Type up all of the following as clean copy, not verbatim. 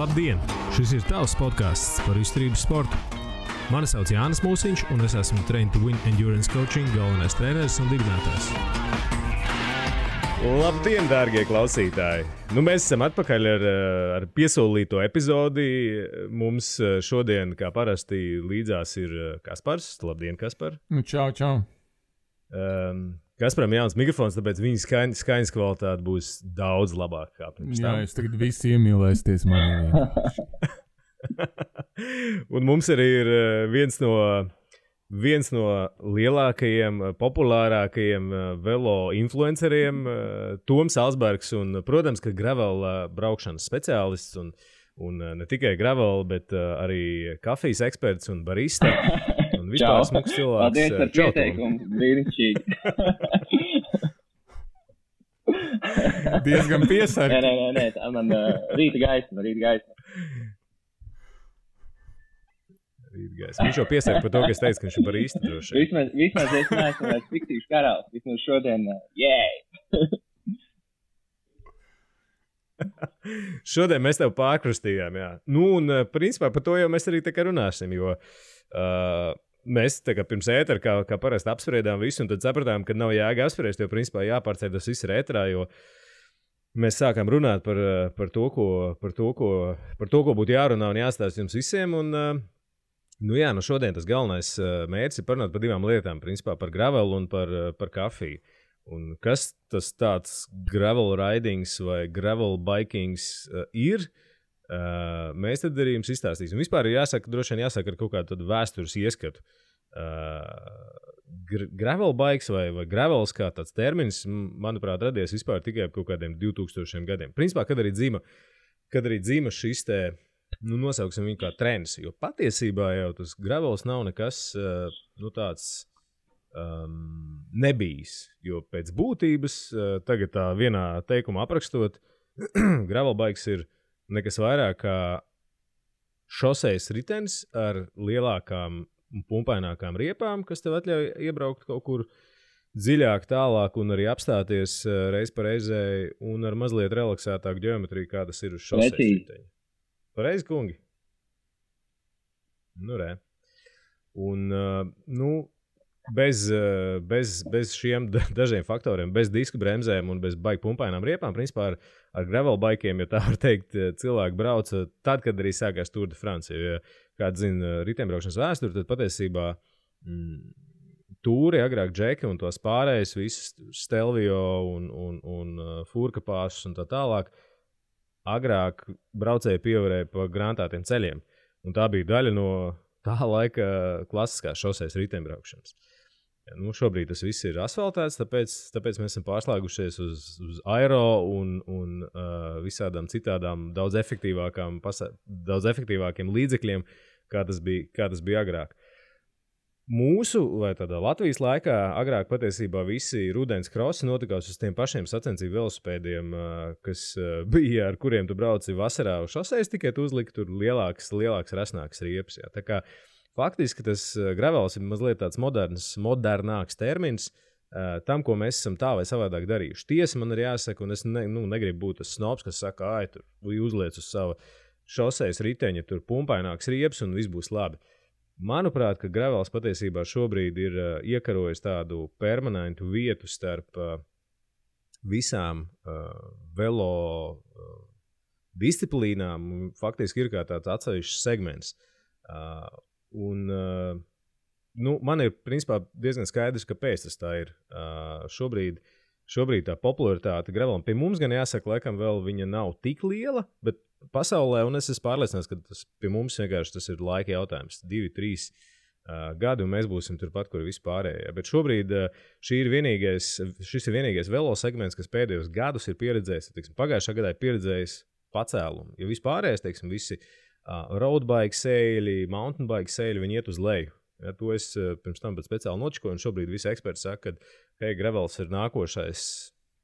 Labdien! Šis ir tavs podcasts par izturības sportu. Mani sauc Jānis Mūsiņš, un es esmu Train to Win Endurance Coaching galvenais treneris un dibinātājs. Labdien, dārgie klausītāji! Mēs esam atpakaļ ar piesolīto epizodi. Mums šodien, kā parasti, līdzās ir Kaspars. Labdien, Kaspar! Čau! Kasparam jauns mikrofons, tāpēc viņa skaņas kvalitāte būs daudz labāka kā pirms tam. Jā, es tagad visi iemīlēsties manī. Un mums arī ir viens no lielākajiem, populārākajiem velo influenceriem, Toms Alsbergs, un, protams, ka gravel braukšanas speciālists, un ne tikai gravel, bet arī kafijas eksperts un barista. Un vispār smuks cilvēks. Paldies par pieteikumu, brīnišķīgi. Diezgan piesargi. Nē, tā man rīta gaisma. Viņš jau piesaka par to, ka es teicu, ka viņš ir barista droši. Vismaz es neesmu vairs fiktīvs karalis. Vismaz šodien, Šodien mēs tev pārkrustījām, jā. Un principā par to jau mēs arī tā kā runāsim, jo mēs tā kā pirms ētera, kā parasti apspriedām visu, un tad sapratām, ka nav jēga apspriest, jo principā jāpārceļ tas viss ir ēterā, jo mēs sākām runāt par to, ko būtu jārunā un jāstāst jums visiem, un šodien tas galvenais mērķis ir parunāt par divām lietām, principā par gravelu un par kafiju. Un kas tas tāds gravel ridings vai gravel bikings ir, mēs tad arī jums izstāstīsim. Vispār droši vien jāsaka ar kaut kādu vēstures ieskatu. Gravel bikes vai gravels kā tāds termins, manuprāt, radies vispār tikai kaut kādiem 2000 gadiem. Principā, kad arī dzīma šis te, nosauksim viņu kā trends, jo patiesībā jau tas gravels nav nekas, tāds nebijis, jo pēc būtības, tagad tā vienā teikumā aprakstot, gravel bikes ir nekas vairāk kā šosejas ritenis ar lielākām un pumpainākām riepām, kas tev atļauj iebraukt kaut kur dziļāk, tālāk un arī apstāties reiz pa reizei un ar mazliet relaksētāku ģeometriju, kā tas ir uz šosejas riteņa. Pareizi, kungi? Re. Un, bez šiem dažiem faktoriem, bez disku bremzēm un bez baigi pumpainām riepām, principā ar gravel bikiem, ja tā var teikt, cilvēki brauca tad, kad arī sākās Tour de France. Ja kāds zina riteņbraukšanas vēsturi, tad patiesībā tūri, agrāk džeki un tos pārējus, visus Stelvio un furkapāšus un tā tālāk, agrāk braucēji pievarēja pa grantātiem ceļiem. Un tā bija daļa no tā laika klasiskās šosejas riteņbraukšanas. Šobrīd tas viss ir asfaltēts, tāpēc mēs esam pārslēgušies uz aero un visādām citādām daudz efektīvākiem līdzekļiem, kā tas bija agrāk. Mūsu, vai tādā Latvijas laikā, agrāk patiesībā visi rudens krosi notikās uz tiem pašiem sacensību velosipēdiem, kas bija, ar kuriem tu brauci vasarā uz šosejas, tikai tu uzliki tur lielāks, resnāks riepas. Jā. Tā kā faktiski tas gravels ir mazliet tāds modernāks termins tam, ko mēs esam tā vai savādāk darījuši. Tiesa man ir jāsaka, un es negribu būt tas snobs, kas saka, tur uzliec uz sava šosejas riteņa, tur pumpaināks riepas un viss būs labi. Manuprāt, ka gravels patiesībā šobrīd ir iekarojis tādu permanentu vietu starp visām velo disciplīnām. Faktiski ir kā tāds atsevišķs segments. Man ir principā diezgan skaidrs, kāpēc tas tā ir. Šobrīd tā popularitāte gravelam pie mums gan jāsaka, laikam vēl viņa nav tik liela, bet pasaulē, un es esmu pārliecināts, ka tas pie mums vienkārši tas ir laika jautājums. 2-3 gadi, un mēs būsim turpat, kur vispārējie. Bet šobrīd šis ir vienīgais velo segments, kas pēdējos gadus ir pieredzējis, pagājušā gadā ir pieredzējis pacēlumu. Jo vispārējais, visi roadbike sēļi, mountain bike sēļi, viņi iet uz leju. Ja, to es pirms tam speciāli nočikoju, un šobrīd visi eksperti saka, ka gravels ir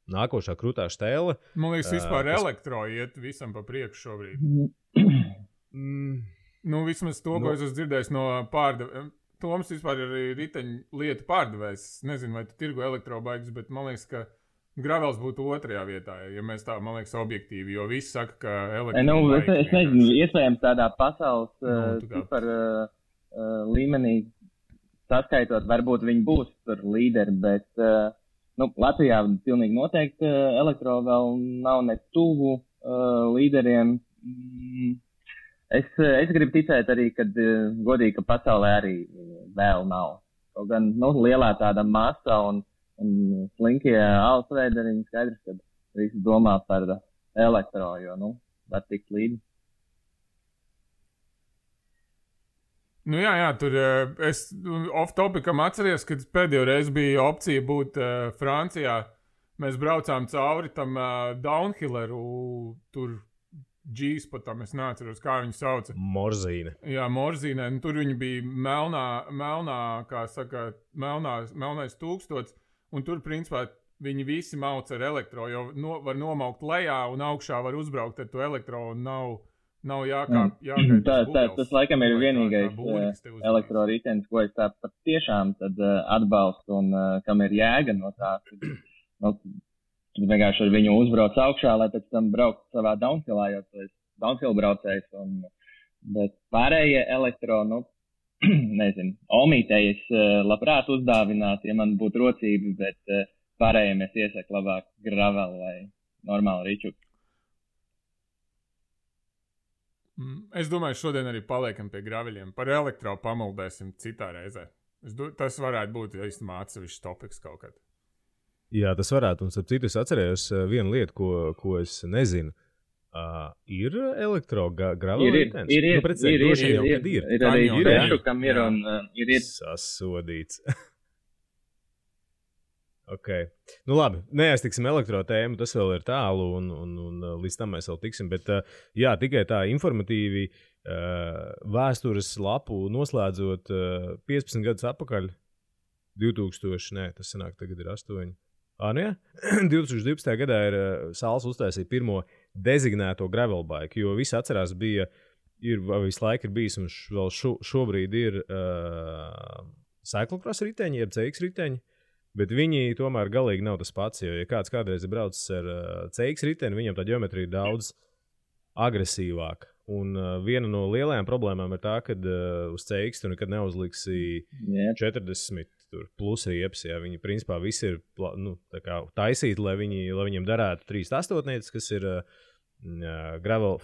nākošā krūtā štēle. Man liekas, vispār elektro iet visam pa priekšu šobrīd. Vismaz to, ko es esmu dzirdējis no pārdevējiem. Toms vispār ir riteņu lietu pārdevējs. Nezinu, vai tu tirgo elektrobaigas, bet man liekas, ka Gravels būtu otrajā vietā, ja mēs tā, man liekas, objektīvi, jo visi saka, ka es nezinu, iespējams tādā pasaules super līmenī saskaitot, varbūt viņi būs tur līderi, bet Latvijā pilnīgi noteikti elektro vēl nav ne tuvu līderiem. Es gribu ticēt arī, kad godīgi, ka pasaulē arī vēl nav. Kaut gan lielā tāda masa un slinkie alsveideriņi skaidrs, ka visi domā par elektro, jo, var tikt līdzi. Jā, tur es off-topicam atceries, kad pēdējo reizi bija opcija būt Francijā. Mēs braucām cauri tam downhilleru, tur G-spotam, es neatceros, kā viņu sauca. Morzīne. Jā, Morzīne. Tur viņi bija melnā, kā saka, melnais tūkstots. Un tur, principā, viņi visi mauc ar elektro, jo var nomaukt lejā un augšā var uzbraukt ar to elektro un nav jāgaida. Tas laikam ir vienīgais elektro ritenis, ko es tā pat tiešām tad atbalstu un kam ir jēga no tā. Vienkārši ar viņu uzbrauc augšā, lai pēc tam braukt savā downhillā, jo tu esi downhill braucējs. Bet pārējie elektro, nezinu, omītējies labprāt uzdāvināt, ja man būtu rocība, bet pārējiem es iesaku labāk gravel vai normāli ričuku. Es domāju, šodien arī paliekam pie graveļiem. Par elektro pamaldēsim citā reizē. Tas varētu būt īstenībā atsevišķs topiks kaut kad. Jā, tas varētu. Un starp citu es atcerējos vienu lietu, ko es nezinu. Ir elektro-gravel ritens? Ir arī Bešu, kam ir un ir. Sasodīts. Ok. Labi, neaiztiksim elektro tēmu, tas vēl ir tālu un līdz tam mēs vēl tiksim, bet jā, tikai tā informatīvi vēstures lapu noslēdzot 15 gadus atpakaļ, 2000, tas sanāk tagad ir 8. 2012. gadā ir Sāls uztaisīja pirmo dezignēto gravel bike, jo visi atcerās visu laiku ir bijis un vēl šobrīd ir cyclocross riteņi, jeb CX riteņi, bet viņi tomēr galīgi nav tas pats, jo ja kāds kādreiz ir braucis ar CX riteni, viņam tā ģeometrija ir daudz agresīvāka. Un viena no lielajām problēmām ir tā, ka uz CX tu nekad neuzliksi 40 plus riepas. Ja. Viņi principā visi ir taisīti, lai viņiem darētu 3/8, kas ir gravel,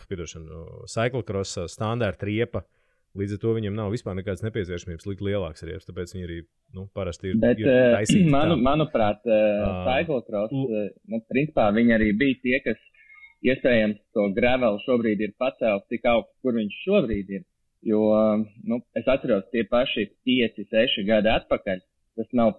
cyclocross standarta riepa. Līdz ar to viņiem nav vispār nekādas nepieciešamības likt lielāks riepas, tāpēc viņi arī parasti ir taisīti. Manuprāt, cyclocross, principā viņi arī bija tie, kas iespējams to gravel šobrīd ir pacēlis tik augsts, kur viņš šobrīd ir. Jo, es atceros tie paši 5-6 gadi atpakaļ. Tas nav,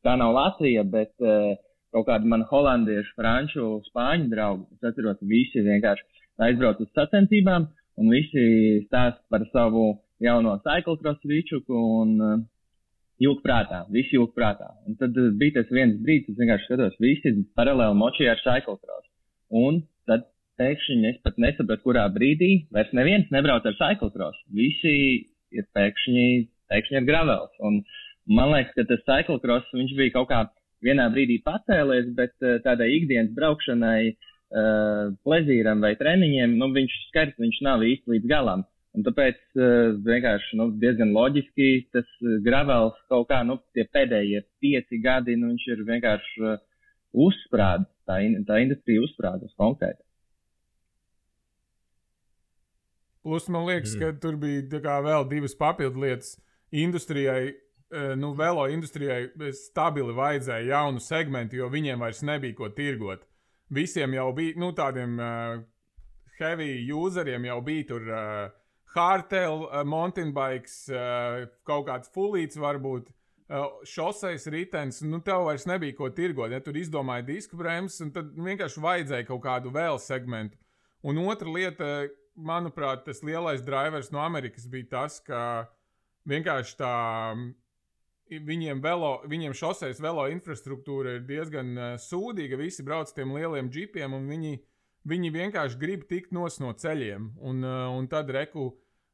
tā nav Latvija, bet kaut kādi man holandiešu, franču, spāņu draugi. Es atceros, visi vienkārši aizbrauc uz sacensībām un visi stāst par savu jauno cyclocross ričuku un jūg prātā. Un tad bija tas viens brīdis, es vienkārši skatos, visi paralēli močīja ar cyclocross. Un tad pēkšņi es pat nesapratu, kurā brīdī vairs neviens nebrauc ar cyclocross. Visi ir pēkšņi ar gravels. Un man liekas, ka tas cyclocross, viņš bija kaut kā vienā brīdī pacēlies, bet tādai ikdienas braukšanai, plezīram vai treniņiem, viņš nav īsti līdz galam. Un tāpēc vienkārši diezgan loģiski tas gravels kaut kā, tie pēdējie 5 gadi, viņš ir vienkārši uzsprādis. Tā industrija uzsprādas konkrēti. Plus, man liekas, ka tur bija vēl 2 papildu lietas. Industrijai, velo industrijai stabili vajadzēja jaunu segmentu, jo viņiem vairs nebija ko tirgot. Visiem jau bija, tādiem heavy useriem jau bija tur hardtail, mountain bikes, kaut kāds fulīts varbūt, šoseis ritenis, tev vairs nebija ko tirgot, ja tur izdomāja disku bremzes, un tad vienkārši vajadzēja kaut kādu vēl segmentu. Un otra lieta, manuprāt, tas lielais drivers no Amerikas bija tas, ka vienkārši viņiem šoseis velo infrastruktūra ir diezgan sūdīga, visi brauc tiem lieliem džipiem, un viņi vienkārši grib tikt no ceļiem, un tad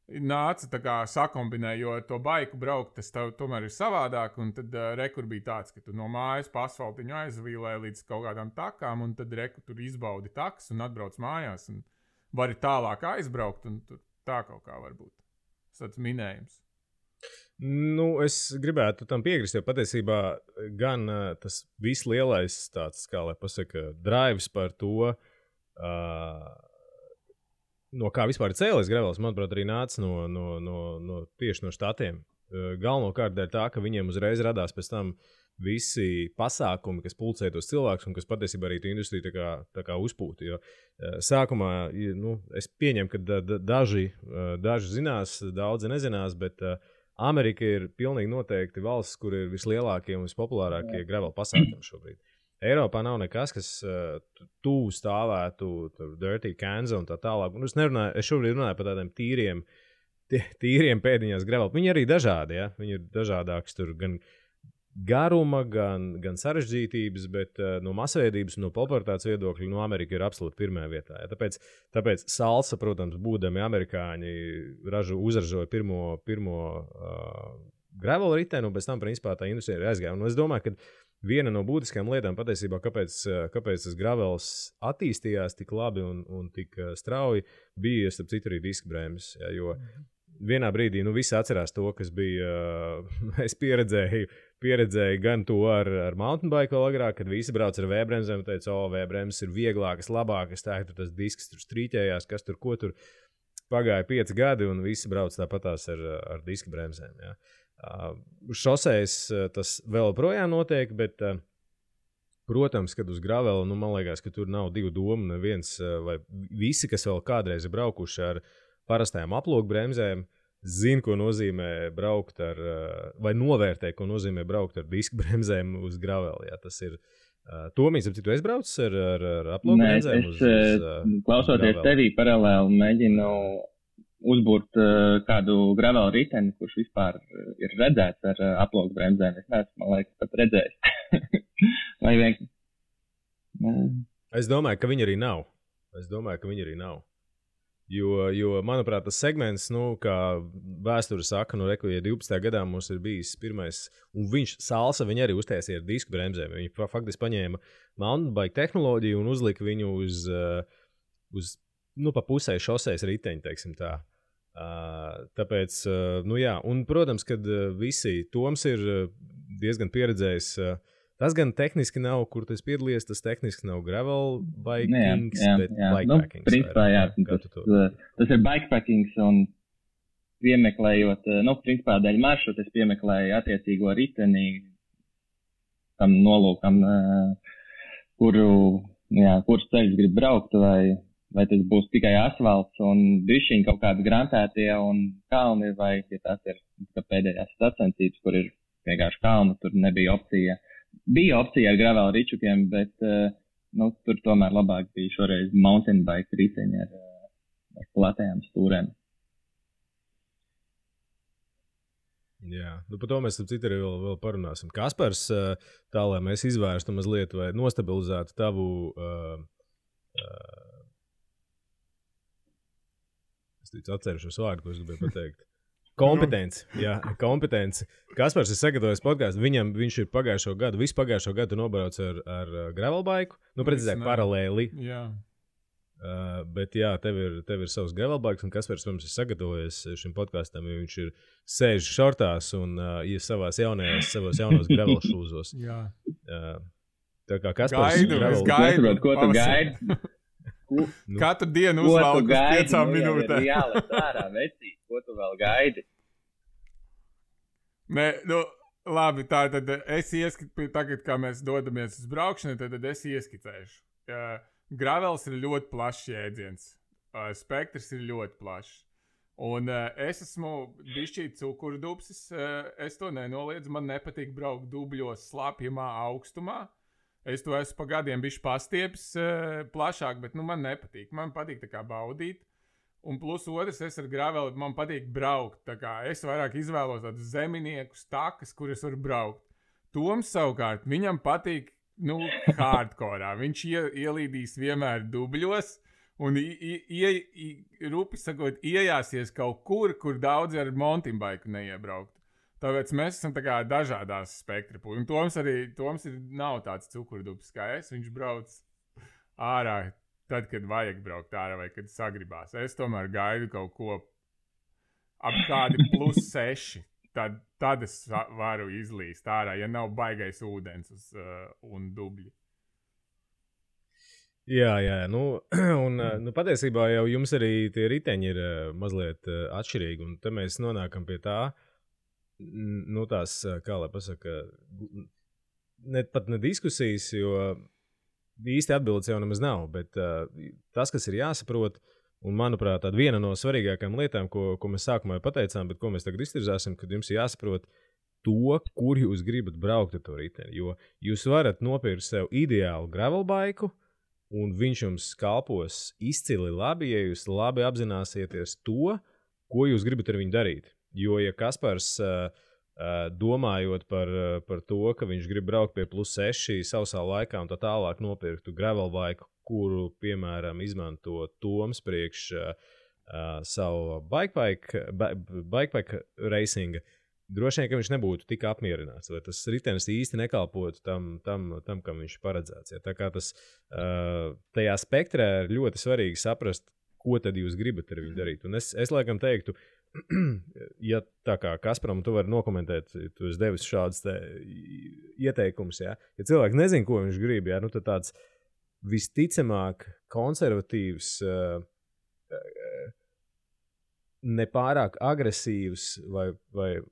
nāca tā kā sakombinē, jo ar to baiku braukt, tas tomēr ir savādāk, un tad rekur bija tāds, ka tu no mājas pa asfaltiņu aizvīlē līdz kaut kādām takām, un tad rekur tur izbaudi takas un atbrauc mājās, un vari tālāk aizbraukt, un tur tā kaut kā var būt. Tas minējums. Nu, es gribētu tam piekrist, jo patiesībā gan tas vislielais tāds, kā lai pasaka, drives par to, no kā vispār ir cēlies gravels, manuprāt, arī nāca tieši no štatiem. Galvenokārt dēļ tā, ka viņiem uzreiz radās pēc tam visi pasākumi, kas pulcē tos cilvēkus un kas patiesībā arī tu industriju tā kā uzpūta. Jo sākumā, es pieņemu, ka daži zinās, daudzi nezinās, bet Amerika ir pilnīgi noteikti valsts, kur ir vislielākie un vispopulārākie gravel pasākumi šobrīd. Eiropā nav nekas, kas tuvu stāvētu, dirty Kansas un tā tālāk. Es šobrīd runāju par tādiem tīriem pēdiņās gravel. Viņi arī dažādi, ja? Viņi ir dažādāks tur gan garuma, gan sarežģītības, bet no masveidības un no popularitātes viedokļa Amerika ir absolūti pirmajā vietā. Ja? Tāpēc salsa, protams, būdami amerikāņi, uzražoja pirmo gravel riteni, un pēc tam, principā, tā industrija ir aizgāja. Un es domāju, ka viena no būtiskajām lietām patiesībā, kāpēc tas gravels attīstījās tik labi un tik strauji, bija, starp citu, arī diskbrēmes. Ja? Jo vienā brīdī visi atcerās to, kas bija, es pieredzēju gan to ar mountain bike vēl agrāk, kad visi brauc ar V-bremzēm un teica, V-bremzes ir vieglākas, labākas, tā ir tas disks tur strīķējās, kas tur, ko tur. Pagāja 5 gadi un visi brauc tāpatās ar diska bremzēm. Ja. Šosēs tas vēl projām notiek, bet, protams, kad uz gravela, man liekas, ka tur nav divu domu, neviens vai visi, kas vēl kādreiz ir braukuši ar parastajām aploku bremzēm, zina, ko nozīmē braukt ar, vai novērtē, ko nozīmē braukt ar disku bremzēm uz gravela. Ja, tas ir Tomīs, tu esi braucis ar aploku bremzēm? Es klausoties tevī paralēli mēģinu uzbūrt kādu gravela riteni, kurš vispār ir redzēts ar aploku bremzēm. Es neesmu, man liekas, pat redzējis. Vai vienkārši? Es domāju, ka viņi arī nav. Jo, manuprāt, tas segments, kā vēsture saka, ja 12. gadā mums ir bijis pirmais, un salsa viņi arī uztaisīja ar disku bremzēm. Viņi faktiski paņēma mountain bike tehnoloģiju un uzlika viņu uz pa pusē šoseis riteņi, teiksim tā. Tāpēc, jā, un, protams, kad visi Toms ir diezgan pieredzējis. Tas gan tehniski nav, kur tu esi piedalījies, tas tehniski nav gravel bikings, bet bikepackings. Principā, jā, tas ir bikepackings un piemeklējot, principā dēļ maršrutu es piemeklēju attiecīgo riteni tam nolūkam, kurus ceļus grib braukt, vai tas būs tikai asfalts un bišķiņ kaut kādi grantētie un kalni, vai ja tās ir pēdējās sacensības, kur ir vienkārši kalni, tur nebija opcija. Bija opcija ar gravel ričukiem, bet tur tomēr labāk bija šoreiz mountain bike riteņi ar platējām stūrēm. Jā, par to mēs citu arī vēl parunāsim. Kaspars, tā lai mēs izvērstu mazliet vai nostabilizētu tavu es atcerušos vārdu, ko es gribēju pateikt. Kompetenci. Kaspars ir sagatavojis podcastu. Viņš ir visu pagājušo gadu nobrauc ar gravel bike. Precīzāk, paralēli. Jā. Bet jā, tev ir savs gravel bikes, un Kaspars mums ir sagatavojies šim podkastam, jo viņš ir sēž šortās un ir savos jaunos gravel šūzos. Jā. Tā kā Kaspars es gaidu. Ko tu gaidi? Katru dienu uzvalku uz 5 minūtēm. Jā, ārā, vecīt, ko tu vēl gaidi? Nē, labi, tad es ieskicēšu, tagad, kā mēs dodamies uz braukšanu, tad es ieskicēšu. Gravels ir ļoti plašs jēdziens. Spektrs ir ļoti plašs. Un es esmu bišķīt cukurdubsis, es to nenoliedzu, man nepatīk braukt dubļos slapjamā augstumā. Es to esmu pa gadiem bišķi pastiepis plašāk, bet man nepatīk. Man patīk tā kā baudīt. Un plus otrs, es ar graveli, man patīk braukt. Tā kā es vairāk izvēlos tādus zeminiekus, takas, kuras var braukt. Toms savukārt, viņam patīk, hardcore. Viņš ielīdīs vienmēr dubļos un rupi sakot, iejāsies kaut kur daudzi ar mountain bike neiebraukt. Tāpēc mēs esam tā kā dažādās spektra puses. Un Toms nav tāds cukurdubs kā es. Viņš brauc ārā tad, kad vajag braukt ārā vai kad sagribās. Es tomēr gaidu kaut ko ap kādi +6. Tad es varu izlīst ārā, ja nav baigais ūdens un dubļi. Jā, un patiesībā jau jums arī tie riteņi ir mazliet atšķirīgi, un te mēs nonākam pie tā, tās, kā lai pasaka, pat ne diskusijas, jo īsti atbildes jau nemaz nav, bet tas, kas ir jāsaprot, un manuprāt, tāda viena no svarīgākajām lietām, ko mēs sākumā pateicām, bet ko mēs tagad iztirzāsim, kad jums jāsaprot to, kur jūs gribat braukt ar to riteni, jo jūs varat nopirkt sev ideālu gravelbaiku, un viņš jums kalpos izcili labi, ja jūs labi apzināsieties to, ko jūs gribat ar viņu darīt. Jo, ja Kaspars, domājot par to, ka viņš grib braukt pie +6 sausā laikā un tā tālāk nopirktu gravelbaiku, kuru, piemēram, izmanto Toms priekš savu bikepack racinga, droši vien, ka viņš nebūtu tik apmierināts, vai tas ritenis īsti nekalpotu tam kam viņš paredzēts. Ja? Tā kā tas tajā spektrā ir ļoti svarīgi saprast, ko tad jūs gribat ar viņu darīt. Un es laikam teiktu, ja tā kā Kasparam tu vari nokomentēt, tu esi devis šādas ieteikumus, ja cilvēks nezin, ko viņš grib, ja? Tad tāds visticamāk konservatīvs, nepārāk agresīvs vai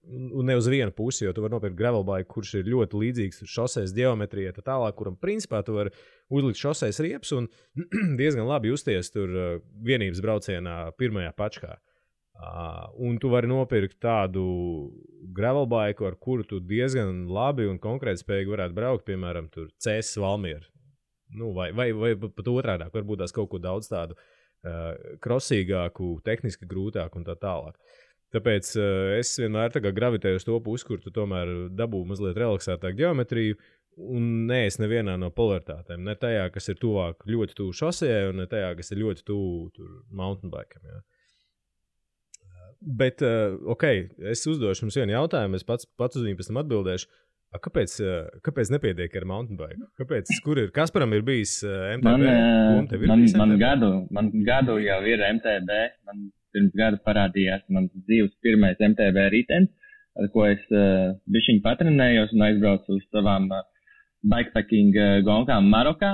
ne uz vienu pusi, jo tu vari nopirkt gravelbaiku, kurš ir ļoti līdzīgs šoseis ģeometrijai, tā tālāk, kuram principā tu vari uzlikt šoseis riepas un diezgan labi justies tur vienības braucienā pirmajā pačkā. Un tu vari nopirkt tādu gravelbaiku, ar kuru tu diezgan labi un konkrēti spējīgi varētu braukt, piemēram, tur CS Valmiera. Vai pat otrādāk, varbūt tās kaut ko daudz tādu krosīgāku, tehniski grūtāku un tā tālāk. Tāpēc es vienmēr tā kā gravitēju uz to pusi, kur tu tomēr dabū mazliet relaksētāku ģeometriju un neesi nevienā no polaritātēm. Ne tajā, kas ir tuvāk ļoti tuvu šosejai un ne tajā, kas ir ļoti tuvu mountain bikeam. Ja. Bet, es uzdošu jums vienu jautājumu, es pats uz viņu pēc tam atbildēšu. Kāpēc nepietiek ar mountain bike? Kasparam ir bijis MTB? Man gadu jau ir MTB. Man pirms gada parādījās mans dzīves pirmais MTB ritenis, ar ko es bišķiņ patrenējos un aizbraucu uz savām bikepacking gonkām Marokā.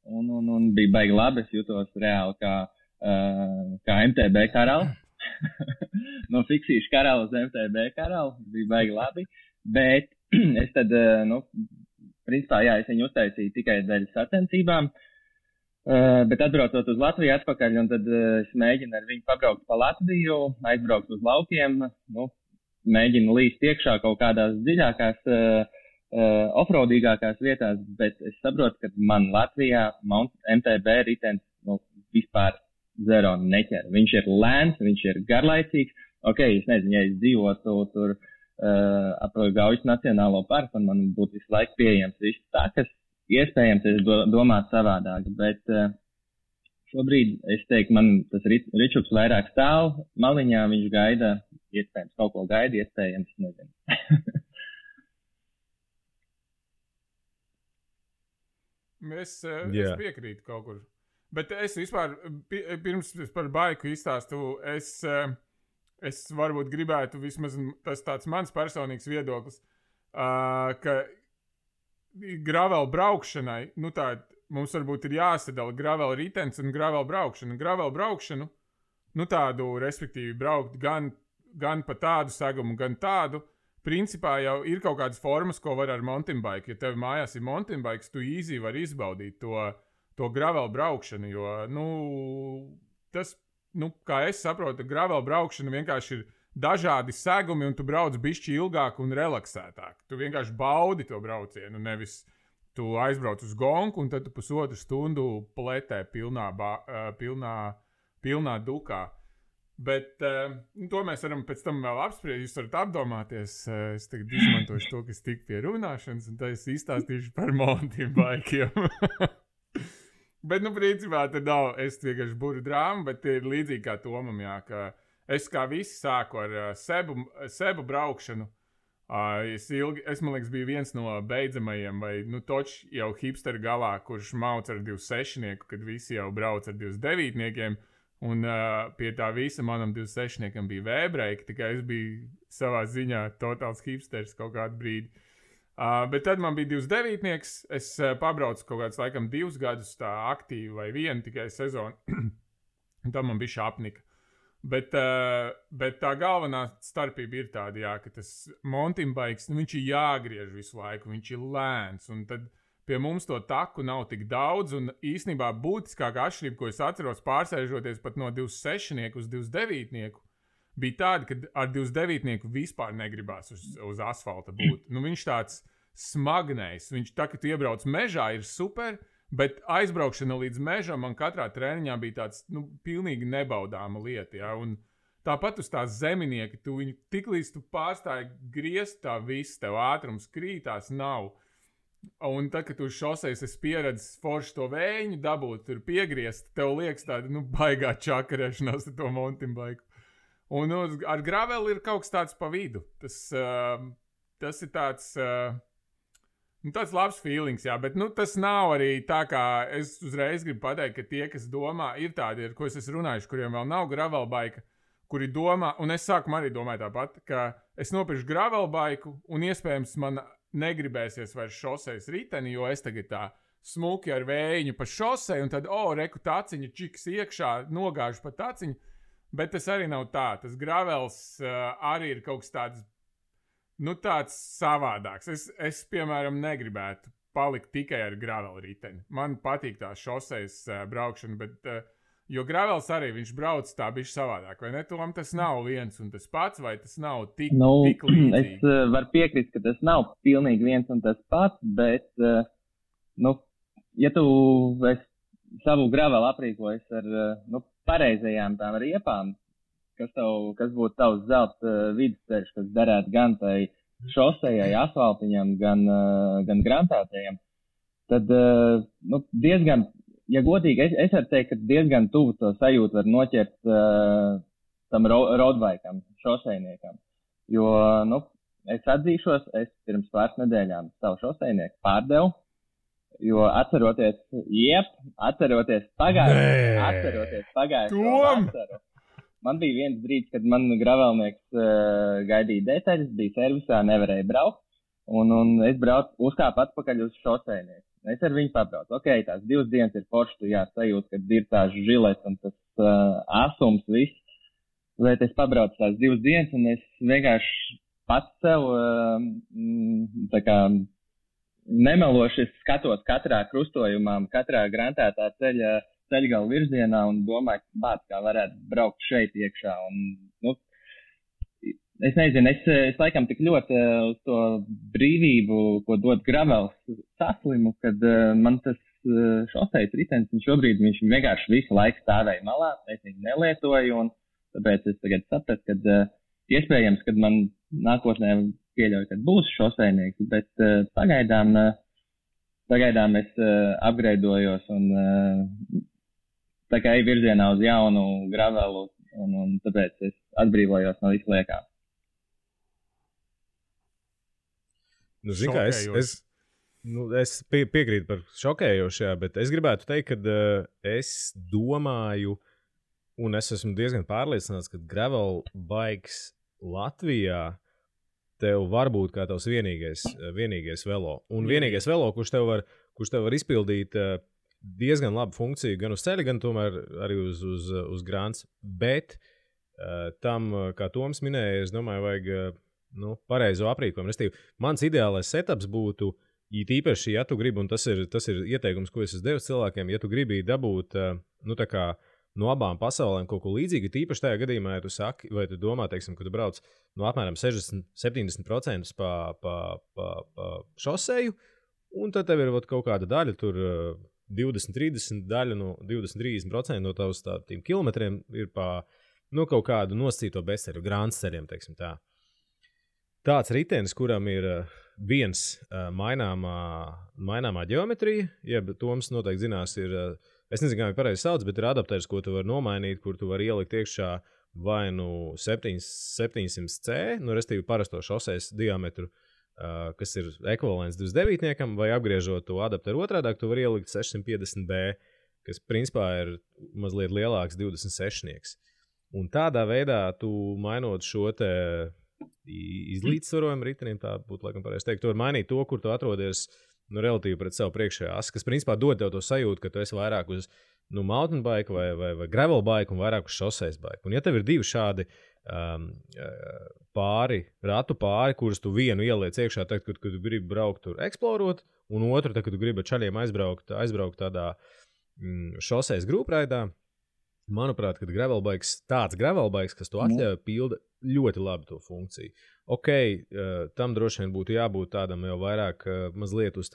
Un bija baigi labi, es jutos reāli kā MTB karalis. No fiksīšu karalis uz MTB karalis. Bija baigi labi. Bet es tad, principā, es viņu uztaisīju tikai dēļ sacensībām, bet atbraucot uz Latviju atpakaļ, un tad es mēģinu ar viņu pabraukt pa Latviju, aizbraukt uz laukiem, mēģinu līst iekšā kaut kādās dziļākās, offroadīgākās vietās, bet es saprotu, ka man Latvijā MTB ritens vispār zero neķer. Viņš ir lēns, viņš ir garlaicīgs. Es nezinu, ja es dzīvotu tur ap Gaujas Nacionālo parku, un man būtu visu laiku pieejams viss tā, kas iespējams es domātu savādāk, bet šobrīd es teiktu, man tas ričuks vairāk stāv maliņā, viņš gaida, iespējams kaut ko gaida, iespējams, nezinu. Es piekrītu kaut kur, bet es vispār, pirms par baiku izstāstu, es varbūt gribētu, vismaz tas tāds mans personīgs viedoklis, ka gravel braukšanai, mums varbūt ir jāsadala gravel ritens un gravel braukšana. Gravel braukšanu, tādu, respektīvi, braukt gan pa tādu segumu, gan tādu, principā jau ir kaut kādas formas, ko var ar mountain bike. Ja tev mājās ir mountain bikes, tu easy var izbaudīt to gravel braukšanu, jo, tas, kā es saprotu, gravel braukšana vienkārši ir dažādi segumi, un tu brauc bišķi ilgāk un relaksētāk. Tu vienkārši baudi to braucienu, nevis tu aizbrauc uz gonku, un tad tu pusotru stundu pletē pilnā dukā. Bet to mēs varam pēc tam vēl apspriest. Jūs varat apdomāties. Es tagad izmantošu to, kas tik pie runāšanas, un tad es izstāstīšu par mountain bikeiem. Bet, principā, tad nav, es vienkārši buru drāmu, bet ir līdzīgi kā Tomam, jā, ka es kā visi sāku ar sebu braukšanu. Es, man liekas, biju viens no beidzamajiem, vai, toč jau hipsteru galā, kurš mauc ar 26-nieku, kad visi jau brauc ar 29-niekiem, un pie tā visa manam 26-niekam bija vēbreiki, tikai es biju savā ziņā totāls hipsters kaut kādu brīdi. Bet tad man bija 29-nieks, es pabraucu kaut kāds, laikam, 2 gadus tā aktīvi vai 1 tikai sezonu, un tad man bija šapnika. Bet tā galvenā starpība ir tāda, jā, ka tas mountain bikes, viņš ir jāgriež visu laiku, viņš ir lēns, un tad pie mums to taku nav tik daudz, un īstenībā būtiskākā atšķirība, ko es atceros pārsēžoties pat no 26-nieku uz 29-nieku, bija tāda, ka ar 29-nieku vispār negribās uz asfalta būt. Viņš tāds smagnējs, viņš tā, ka tu iebrauc mežā, ir super, bet aizbraukšana līdz mežam man katrā treniņā bija tāds, pilnīgi nebaudāma lieta, ja, un tāpat uz tās zeminieki, tu viņu tiklīdz tu pārstāji griezt, tā viss tev ātrums krītās nav. Un tad, kad tu uz šosejas esi pieredzis forši to vēju dabūt, tur piegriezt, tev liekas tāda, baigā čakarēšanās ar to mountain bike. Un ar graveli ir kaut kas tāds pa vidu. Tas ir tāds... tāds labs feelings, jā, bet tas nav arī tā, kā es uzreiz gribu pateikt, ka tie, kas domā, ir tādi, ar ko es esmu runājuši, kuriem vēl nav gravelbaika, kuri domā, un es sākumā arī domāju tāpat, ka es nopirkšu gravelbaiku, un iespējams man negribēsies vairs šosejas riteni, jo es tagad tā smuki ar vējiņu pa šoseju, un tad, reku taciņa čiks iekšā, nogāžu pa taciņu, bet tas arī nav tā. Tas gravels arī ir kaut kas tāds, tāds savādāks. Es, piemēram, negribētu palikt tikai ar gravelu riteni. Man patīk tā šosejas braukšana, bet, jo gravels arī viņš brauc tā bišķi savādāk. Vai ne, Tom, tas nav viens un tas pats, vai tas nav tik līdzīgi? Es varu piekrist, ka tas nav pilnīgi viens un tas pats, bet, ja tu savu gravelu aprīkojas ar, pareizajām tām riepām, kas būtu tavs zelta vidusceļš, kas derētu gan tai šosejai, asfaltiņam, gan grantētajam, tad, diezgan, ja godīgi, es varu teikt, ka diezgan tuvu to sajūtu var noķert tam roadbikam, šosejniekam. Jo, es atzīšos, es pirms pāris nedēļām savu šosejnieku pārdevu, jo atceroties pagājušo vasaru, man bija viens brīdis, kad man gravelnieks gaidīja detaļas, bija servisā, nevarēja braukt, un es uzkāpu atpakaļ uz šosejnieku. Es ar viņu pabraucu. Ok, tās 2 dienas ir forši, tu sajūt, kad ir tās žilets un tas asums viss, bet es pabraucu tās 2 dienas, un es vienkārši pats sev tā kā nemeloši skatos katrā krustojumā, katrā grantētā ceļgala virzienā un domāju, kā varētu braukt šeit iekšā. Un, es nezinu, es laikam tik ļoti uz to brīvību, ko dod gravels, saslimu, kad man tas šosejas ritenis, un šobrīd viņš vienkārši visu laiku stāvēja malā, es viņu nelietoju, un tāpēc es tagad sapratu, ka iespējams, kad man nākotnē pieļauju, kad būs šosejnieks, bet pagaidām es upgradeojos un tā kā ej virzienā uz jaunu gravelu, un tāpēc es atbrīvojos no visu liekā. Zini kā, es piekrītu par šokējošajā, bet es gribētu teikt, ka es domāju, un es esmu diezgan pārliecināts, ka gravel bikes Latvijā tev var būt kā tavs vienīgais velo. Un vienīgais velo, kurš tev var izpildīt diezgan labu funkciju gan uz ceļa, gan tomēr arī uz grants. Bet tam, kā Toms minēja, es domāju, vajag pareizo aprīkojumu. Restīvi, mans ideālais setups būtu, īpaši, ja tu gribi, un tas ir ieteikums, ko es esmu devis cilvēkiem, ja tu gribi dabūt tā kā no abām pasaulēm kaut ko līdzīgu, tīpaši tajā gadījumā, ja tu saki, vai tu domā, teiksim, ka tu brauc no apmēram 60-70% pa šoseju, un tad tev ir kaut kāda daļa, tur 20-30 daļa no 20-30% no tavs tādiem kilometriem ir pa kaut kādu nosacīto bezceļu, grāns ceļiem, teiksim tā. Tāds ritenis, kuram ir viens maināmā ģeometrija, jeb Toms noteikti zinās, ir es nezinu, kā viņi pareizi sauc, bet ir adapters, ko tu vari nomainīt, kur tu vari ielikt iekšā vai nu 700C, nu, restīvi parasto šoseis diametru, kas ir ekvivalents 29-niekam, vai apgriežot to adapteru otrādāk, tu vari ielikt 650B, kas principā ir mazliet lielāks 26-nieks. Un tādā veidā tu mainot šo te izlīdzsvarojumu ritenim, tā būtu laikam pareizi teikt, tu vari mainīt to, kur tu atrodies nu, relatīvi pret savu priekšējā asi, kas principā dod tev to sajūtu, ka tu esi vairāk uz mountain bike vai gravel bike un vairāk uz šoseis bike. Un ja tev ir divi šādi ratu pāri, kurus tu vienu ieliec iekšā, tad, kad tu gribi braukt tur eksplorot, un otru, tad, kad tu gribi ar čaļiem aizbraukt tādā šoseis grupreidā, manuprāt, kad tāds gravel bikes, kas to atļauj, pilda ļoti labi to funkciju. Ok, tam droši vien būtu jābūt tādam jau vairāk mazliet uz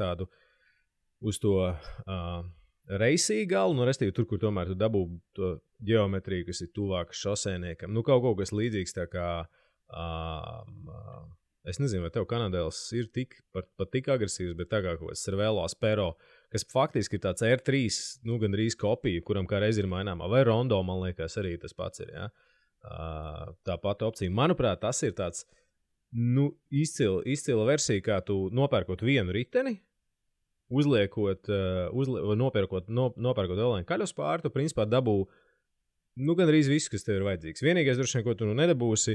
to reisī galu, nu, restīvi tur, kur tomēr tu dabū to ģeometriju, kas ir tuvāk šosēniekam. Nu, kaut kas līdzīgs tā kā, es nezinu, vai tev Kanadēls ir pat tik agresīvs, bet tā kā kaut kāds Cervelo Aspero, kas faktiski ir tāds R3, nu, gandrīz kopija, kuram kā reiz ir maināmā, vai Rondo, man liekas, arī tas pats ir, ja? Tā pati opcija. Manuprāt, tas ir tāds, nu, izcila versija, kā tu nopērkot vienu riteni, nopērkot vēl vienu kaļus pāri, tu principā dabū, nu, gandrīz visu, kas tev ir vajadzīgs. Vienīgais, droši vien, ko tu nedabūsi,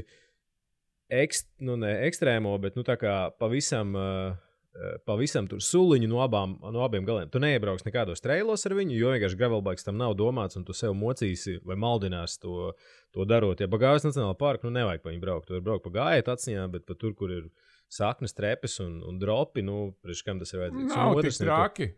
ekstrēmo, bet, nu, tā kā pavisam tur suliņu no abiem galiem. Tu neiebrauks nekādos trailos ar viņu, jo vienkārši gravelbikes tam nav domāts, un tu sev mocīsi vai maldinās to darot. Ja pa Gājas nacionālā parku, nu, nevajag pa viņu braukt. Tu vari braukt pa gājiet aciņā, bet pa tur, kur ir saknes, trepes un dropi, nu, priekš kam tas ir vajadzīgs. Nav tik traki.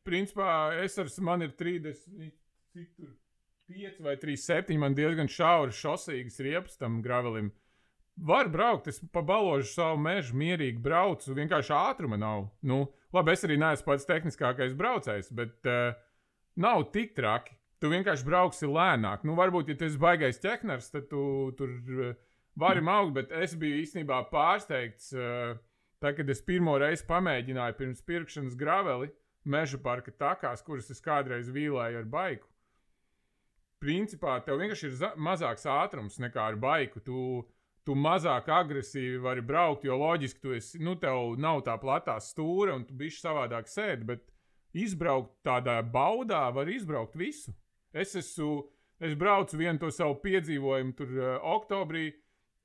Principā, man ir 35 vai 37, man diezgan šauras šosīgas riepas tam gravelim. Var braukt, es pa baložu savu mežu mierīgi braucu, vienkārši ātruma nav. Nu, labi, es arī neesmu pats tehniskākais braucējs, bet nav tik traki. Tu vienkārši brauksi lēnāk. Nu, varbūt, ja tu esi baigais ķekners, tad tu tur vari maukt, bet es biju īstenībā pārsteigts, tā, kad es pirmo reizi pamēģināju pirms pirkšanas graveli meža parka takās, kuras es kādreiz vīlēju ar baiku. Principā, tev vienkārši ir mazāks ātrums nekā ar baiku. Tu mazāk agresīvi vari braukt, jo loģiski tev nav tā platā stūra un tu bišķi savādāk sēdi, bet izbraukt tādā baudā var izbraukt visu. Es braucu vienu to savu piedzīvojumu tur oktobrī,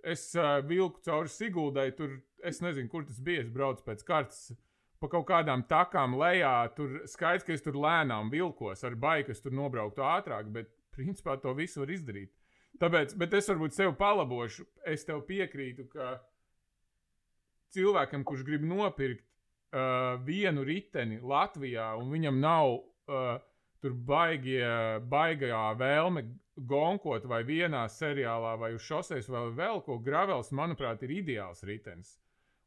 es vilku cauri Siguldai, tur, es nezinu, kur tas bija, es braucu pēc kartas pa kaut kādām takām lejā, tur skaidrs, ka es tur lēnām vilkos ar baiku, es tur nobrauktu ātrāk, bet principā to visu var izdarīt. Tāpēc, bet es varbūt sev palabošu, es tev piekrītu, ka cilvēkam, kurš grib nopirkt vienu riteni Latvijā, un viņam nav tur baigajā vēlme gonkot vai vienā seriālā vai uz šoseis vai vēl ko, gravels, manuprāt, ir ideāls ritenis.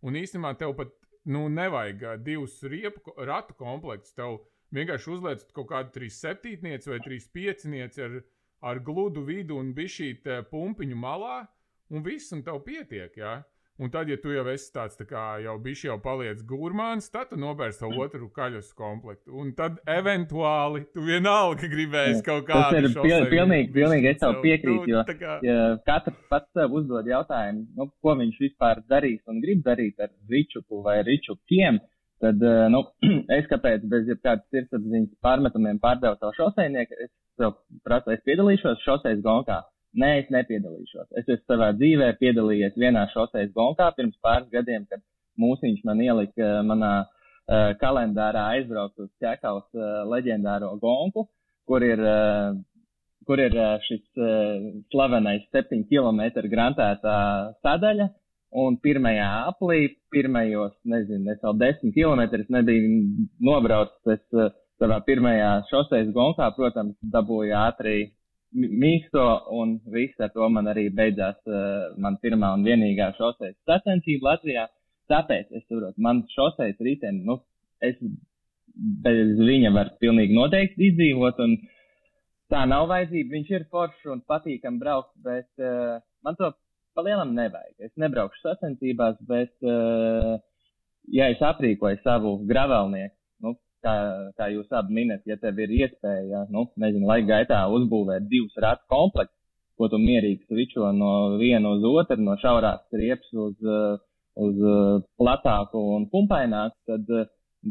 Un īstenībā tev pat nevajag divus ratu komplektus, tev vienkārši uzliec kaut kādu 3,7 vai 3,5 ar gludu vidu un bišķīt pumpiņu malā, un viss, un tev pietiek, jā. Un tad, ja tu jau esi tāds tā kā jau bišķi jau paliec gurmāns, tad tu nopērci savu otru kaļus komplektu. Un tad eventuāli tu vienalga gribēsi kaut kādu šosei. Pilnīgi es tev piekrītu, jo katrs pats sev uzdod jautājumu, ko viņš vispār darīs un grib darīt ar ričupu vai ričupiem. Tad, es kāpēc bez jebkādas sirdsapziņas pārmetumiem pārdevu savu šoseinieku, es tev prasu, es piedalīšos šoseis gonkā. Nē, es nepiedalīšos. Es esmu savā dzīvē piedalījies vienā šoseis gonkā pirms pāris gadiem, kad mūsiņš man ielika manā kalendārā aizbraukt uz Ķekaus leģendāro gonku, kur ir šis slavenais 7 km grantētā sadaļa. Un pirmajā aplī, pirmajos, nezinu, es vēl 10 kilometrus nebiju nobraucis, es savā pirmajā šoseis gonkā, protams, dabūju ātri mīksto, un viss ar to man arī beidzās man pirmā un vienīgā šoseis sacensība Latvijā. Tāpēc, es saprotu, man šoseis riteni, es bez viņa var pilnīgi noteikti izdzīvot, un tā nav vajadzība, viņš ir foršs un patīkam braukt, bet man to palielam nevajag. Es nebraukšu sacensībās, bet, ja es aprīkoju savu gravelnieku, kā jūs abi minat, ja tev ir iespēja, laika gaitā uzbūvēt 2 ratu komplektus, ko tu mierīgi svičo no viena uz otru, no šaurās riepas uz platāku un pumpaināku, tad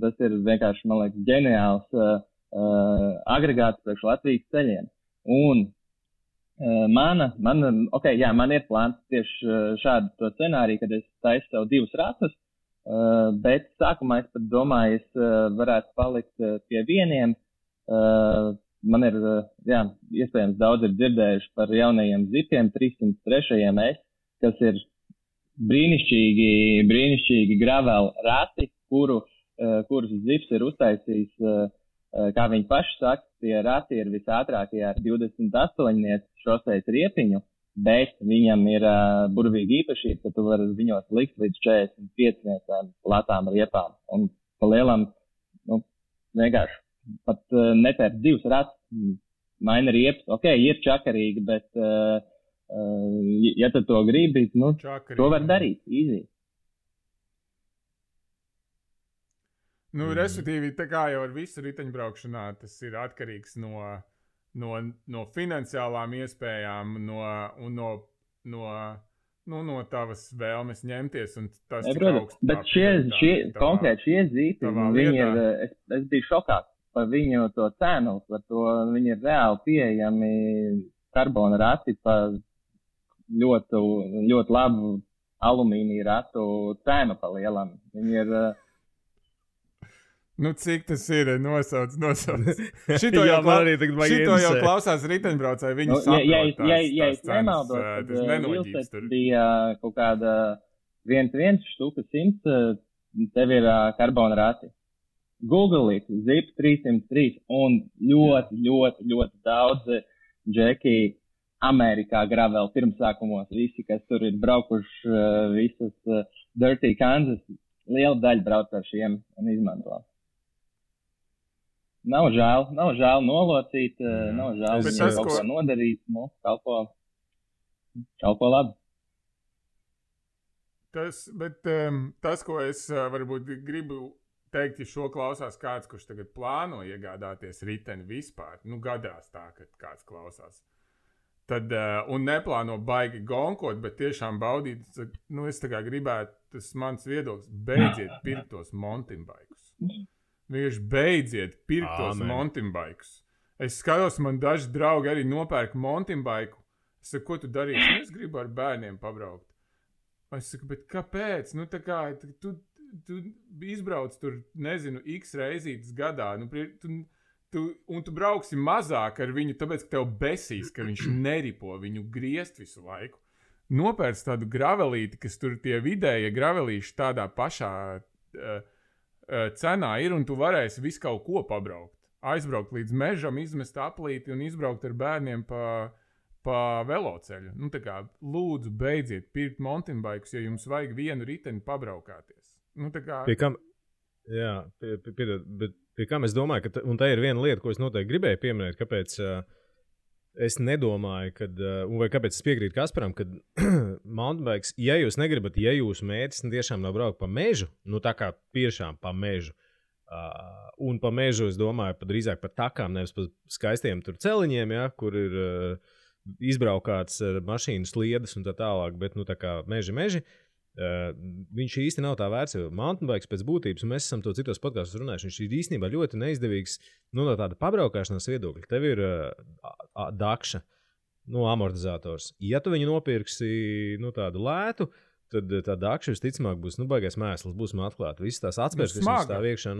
tas ir vienkārši, man liekas, ģeniāls agregāts priekš Latvijas ceļiem. Un man ir plāns tieši šādu to scenāriju, kad es taisu sev 2 ratus, bet sākumā es pat domāju, es varētu palikt pie vieniem. Man ir, iespējams, daudz ir dzirdējuši par jaunajiem zipiem 303 S, kas ir brīnišķīgi gravel rati, kurus zips ir uztaisījis, kā viņi paši saka, tie rati ir visātrākie ar 28 šoseis riepiņu, bet viņam ir burvīgi īpašība, ka tu vari viņos likt līdz 45 platām riepām. Un pa lielam, vienkārši pat nepērt 2 ratus, maina riepas. Ok, ir čakarīgi, bet ja tu to gribi, to var darīt, easy. Respektīvi, tā kā jau ar visu riteņbraukšanā, tas ir atkarīgs no finansiālām iespējām, no tavas vēlmes ņemties. Un tas bet konkrēti šie zīti, es biju šokā par viņu to cenu, par to viņi ir reāli pieejami karbona rati par ļoti labu alumīnija ratu cenu pa lielam. Viņi ir... cik tas ir? Nosauc. Šito jau klausās riteņbraucēji, viņi saprot ja es nemaldos, tad Vilsets bija kaut kāda 1 štuka 100, tev ir karbona rati. Google it, zip 303 un ļoti daudz džeki Amerikā gravel pirmsākumos, visi, kas tur ir braukuši visas Dirty Kansas, liela daļa brauc ar šiem un izmanto. Nav žēl nolocīt, nav žēl kaut ko nodarīt, kalpo labi. Tas, ko es varbūt gribu teikt, ja šo klausās kāds, kurš tagad plāno iegādāties riteni vispār, gadās tā, ka kāds klausās. Tad, un neplāno baigi gonkot, bet tiešām baudīt, es tā kā gribētu, tas mans viedoklis, beidziet pirkt tos mountain bikes. Vienkārši beidziet pirkt tos mountain bikes. Es skatos, man daži draugi arī nopērk mountain bike. Es saku, ko tu darīsi? Es gribu ar bērniem pabraukt. Es saku, bet kāpēc? Tā kā, tu izbrauc tur, nezinu, x reizītes gadā, un tu brauksi mazāk ar viņu, tāpēc, ka tev besīs, ka viņš neripo viņu griezt visu laiku. Nopērc tādu gravelīti, kas tur tie vidējie gravelīši tādā pašā cenā ir, un tu varēsi visu kaut ko pabraukt. Aizbraukt līdz mežam, izmest aplīti un izbraukt ar bērniem pa veloceļu. Tā kā, lūdzu, beidziet pirkt mountain bikes, ja jums vajag vienu riteni pabraukāties. Pie kam, bet pie kam es domāju, un tā ir viena lieta, ko es noteikti gribēju pieminēt, kāpēc es nedomāju, vai kāpēc es piekrītu Kasparam, ka mountain bikes, ja jūs negribat, ja jūsu mērķis tiešām nav braukt pa mežu, tā kā tiešām pa mežu, un pa mežu, es domāju, drīzāk pa takām, nevis pa skaistiem tur celiņiem, kur ir izbraukāts mašīnu sliedes un tā tālāk, bet tā kā meži, viņš īsti nav tā vērts, jo mountain bikes pēc būtības, un mēs esam to citos podkastos runājuši, viņš ir īstenībā ļoti neizdevīgs no tāda pabraukāšanās viedokļa. Tev ir dakša, amortizators. Ja tu viņu nopirksi tādu lētu, tad tā dakša visticamāk būs baigais mēsls, būs atklāta. Visas tās atspērs, kas mums stāv iekšā,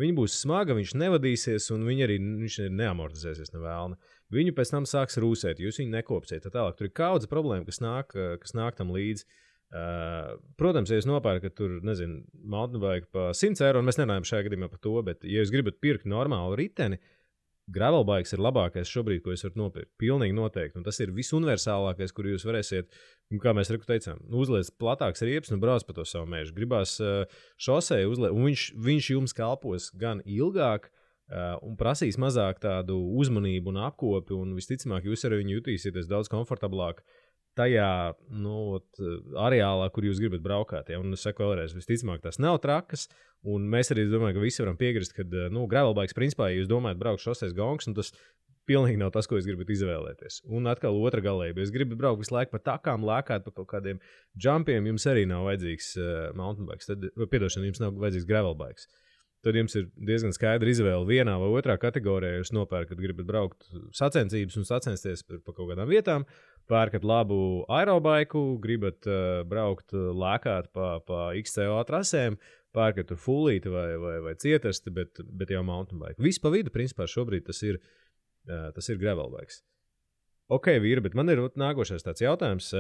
viņa būs smaga, viņš nevadīsies, un viņš neamortizēsies nevēlna. Viņu pēc tam sāks rūsēt, jūs viņu nekopsiet. Tālāk tur ir kaudze problēma, kas nāk tam līdzi. Protams, ja jūs nopērkat tur, mountain bike pa 100 eiro, un mēs nerunājam šajā gadījumā par to, bet ja jūs gribat pirkt normālu riteni, gravel bikes ir labākais šobrīd, ko jūs varat nopirkt. Pilnīgi noteikti, un tas ir visuniversālākais, kur jūs varēsiet, kā mēs teicām, uzliec platāks riepas un brauc pa to savu mežu. Gribās šosei uzliec, un viņš jums kalpos gan ilgāk, un prasīs mazāk tādu uzmanību un apkopi, un visticamāk jūs ar viņu jutīsieties daudz komfortablāk. tajā areālā, kur jūs gribat braukāt. Ja? Un es saku vēlreiz, visticamāk, tās nav trakas. Un mēs arī domājam, ka visi varam piekrist, ka gravelbikes, principā, ja jūs domājat braukt šoseis gongs, un tas pilnīgi nav tas, ko jūs gribat izvēlēties. Un atkal otra galība. Ja jūs gribat braukt visu laiku pa takām, lēkāt pa kaut kādiem jumpiem, jums arī nav vajadzīgs mountain bikes. Jums nav vajadzīgs gravelbikes. Tad jums ir diezgan skaidra izvēle vienā vai otrā kategorijā. Jūs nopērkat, gribat braukt sacensības un sacensties pa kaut kādām vietām, pērkat labu aerobaiku, gribat braukt lēkāt pa XCO trasēm, pērkat tur fullīti vai cietasti, bet jau mountain bike. Viss pa vidu, principā, šobrīd tas ir gravelbikes. Ok, vīri, bet man ir nākošais tāds jautājums.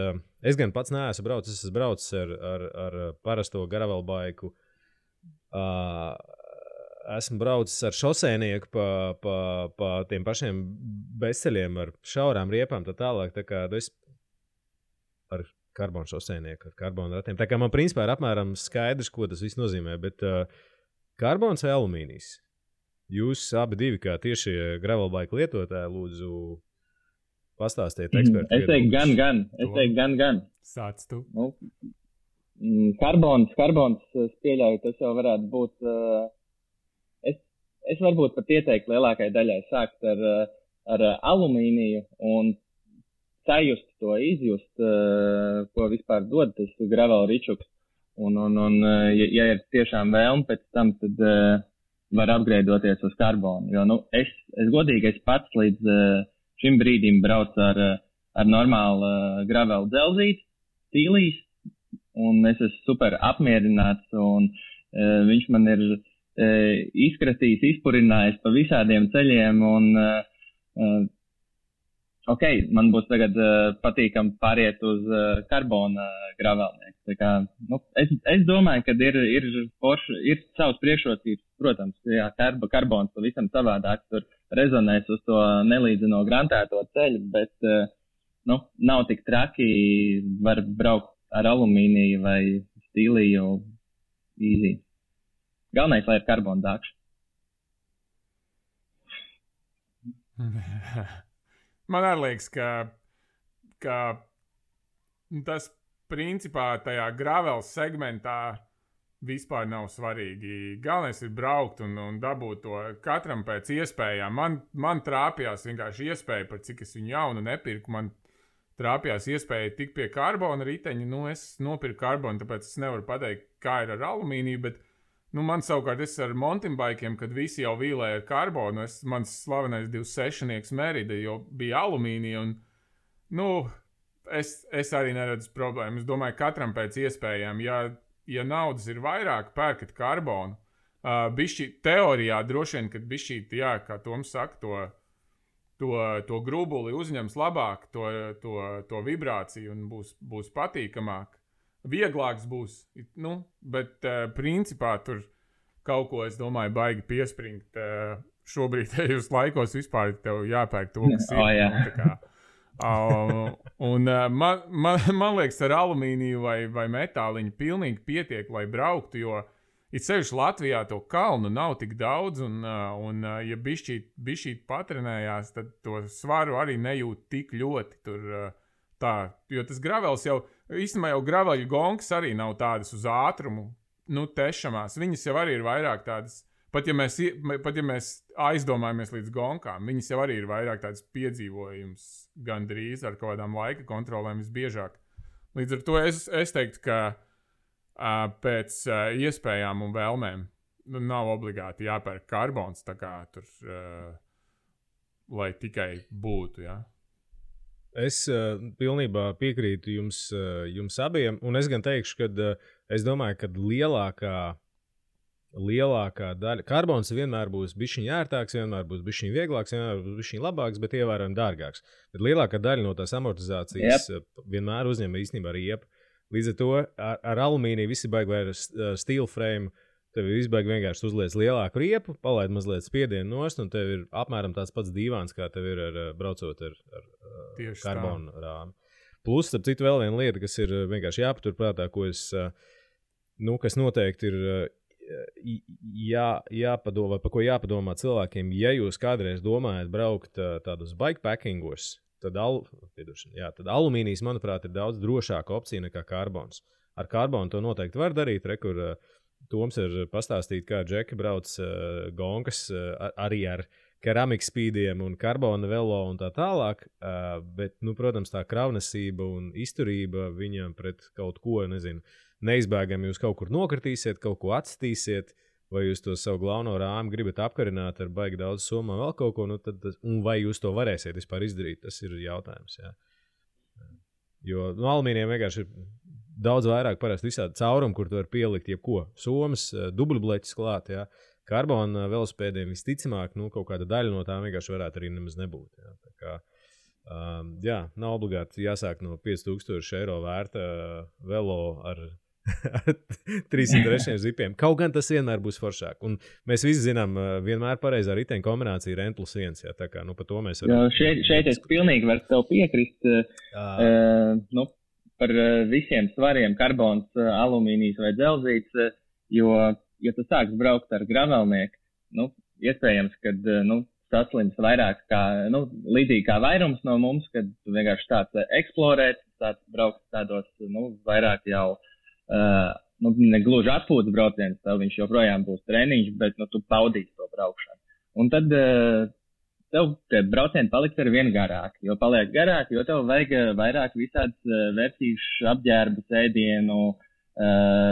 Es gan pats neesmu braucis, es esmu braucis ar parasto gravelbaiku. Esmu braucis ar šoseinieku pa tiem pašiem bezceļiem ar šaurām riepām, tā tālāk, tā kā es ar karbonu šoseinieku, ar karbonu ratiem. Tā kā man principā ir apmēram skaidrs, ko tas viss nozīmē, bet karbons vai alumīnijas? Jūs abi divi, kā tieši gravelbike lietotāji, lūdzu pastāstiet ekspertu. Es teiktu gan. Sāc tu. Karbons, es pieļauju, tas jau varētu būt... Es varbūt pat ieteiktu lielākai daļai sākt ar alumīniju un sajust to, izjust, ko vispār dod tas gravel ričuks. Un ja ir tiešām vēlme pēc tam, tad var upgradeoties uz karbonu. Jo, es godīgi, es pats līdz šim brīdim braucu ar normālu gravel dzelzīti, stīlīs, un es esmu super apmierināts, un viņš man ir izkratījis, izpurinājis pa visādiem ceļiem, un ok, man būs tagad patīkami pāriet uz karbona gravelnieku. Tā kā, es domāju, ka ir savas priekšrocības, protams, jā, karbons pavisam savādāk, tur rezonēs uz to nelīdzino grantēto ceļu, bet, nav tik traki, var braukt ar alumīniju vai stīliju easy. Galvenais, lai ir karbona dākša. Man arī liekas, ka tas principā tajā gravel segmentā vispār nav svarīgi. Galvenais ir braukt un dabūt to katram pēc iespējām. Man trāpījās vienkārši iespēja, par cik es viņu jaunu nepirku, man trāpījās iespēja tikt pie karbona riteņa. Es nopirku karbonu, tāpēc es nevaru pateikt, kā ir ar alumīniju, bet man savukārt es ar mountain bikiem, kad visi jau vīlēja ar karbonu, mans slavenais 26-nieks Merida jau bija alumīnija, un, es arī neredzu problēmu. Es domāju, katram pēc iespējām, ja naudas ir vairāk, pērkat karbonu. Bišķi teorijā droši vien, kad bišķīt, jā, kā Toms saka, to grubuli uzņems labāk, to vibrāciju un būs patīkamāk. Vieglāks būs, bet principā tur kaut ko, es domāju, baigi piespringt. Šobrīd tajos laikos vispār tev jāpērk to, kas ir. Man liekas, ar alumīniju vai metāliņu pilnīgi pietiek, lai brauktu, jo it sevišķi Latvijā to kalnu nav tik daudz, un ja bišķīt patrenējās, tad to svaru arī nejūt tik ļoti tur tā, jo tas gravels īstenībā jau graveļu gongs arī nav tādas uz ātrumu, tešamās. Viņas jau arī ir vairāk tādas, pat ja mēs aizdomājamies līdz gongām, viņas jau arī ir vairāk tādas piedzīvojums gandrīz ar kaut kādām laika kontrolēm visbiežāk. Līdz ar to es teiktu, ka pēc iespējām un vēlmēm nav obligāti jāpērk karbons, tā kā tur, lai tikai būtu, jā. Es pilnībā piekrītu jums abiem, un es gan teikšu, ka es domāju, ka lielākā daļa karbons vienmēr būs bišķiņ ērtāks, vienmēr būs bišķiņ vieglāks, vienmēr būs bišķiņ labāks, bet ievērojami dārgāks. Bet lielākā daļa no tās amortizācijas vienmēr uzņem īstenībā riepu. Līdz ar to ar alumīniju visi baigi vai ar steel frame. Tev ir izbaigi vienkārši uzliec lielāku riepu, palaid mazliet spiedienu nost, un tev ir apmēram tāds pats dīvāns, kā tev ir braucot ar karbonu rāmi. Plus, starp citu, vēl viena lieta, kas ir vienkārši jāpaturprātā, kas noteikti ir jāpadomā, par ko jāpadomā cilvēkiem, ja jūs kādreiz domājat braukt tādos bikepackingos, tad alumīnijas, manuprāt, ir daudz drošāka opcija nekā karbons. Ar karbonu to noteikti var darīt, kur Toms ir pastāstīt, kā Džeki brauc gonkas arī ar keramikas spīdiem un karbona velo un tā tālāk, bet, protams, tā kravnesība un izturība viņam pret kaut ko, neizbēgami jūs kaut kur nokritīsiet, kaut ko atstīsiet, vai jūs to savu galveno rāmi gribat apkarināt ar baigi daudz somā vēl kaut ko, un vai jūs to varēsiet vispār izdarīt, tas ir jautājums, jā. Jo alumīnijam vienkārši ir daudz vairāk parasti visādi caurumi, kur tu vari pielikt jebko. Somas, dubļbleķis klāt, jā. Karbona velospēdiem visticamāk, kaut kāda daļa no tām vienkārši varētu arī nemaz nebūt. Jā. Tā kā, nav obligāti jāsāk no 5000 eiro vērta velo ar 303 zipiem. Kaut gan tas vienmēr būs foršāk. Un mēs visi zinām, vienmēr pareizā riteņa kombinācija ir N+1. Jā. Tā kā, par to mēs varam... Šeit es pilnīgi varu tev piekrist. Par visiem svariem karbons, alumīnijas vai dzelzīts, jo, ja tu sāks braukt ar gravelnieku, iespējams, kad, saslims vairāk kā, līdzīgi kā vairums no mums, kad tu vienkārši tāds eksplorēt, tāds braukt tādos, vairāk jau, negluži atpūtas brauciens, tev viņš joprojām būs treniņš, bet, tu paudīsi to braukšanu. Un tad, tev tie braucieni paliks ar vien garāki, jo paliek garāki, jo tev vajag vairāk visādas vērtīšu apģērbu, ēdienu,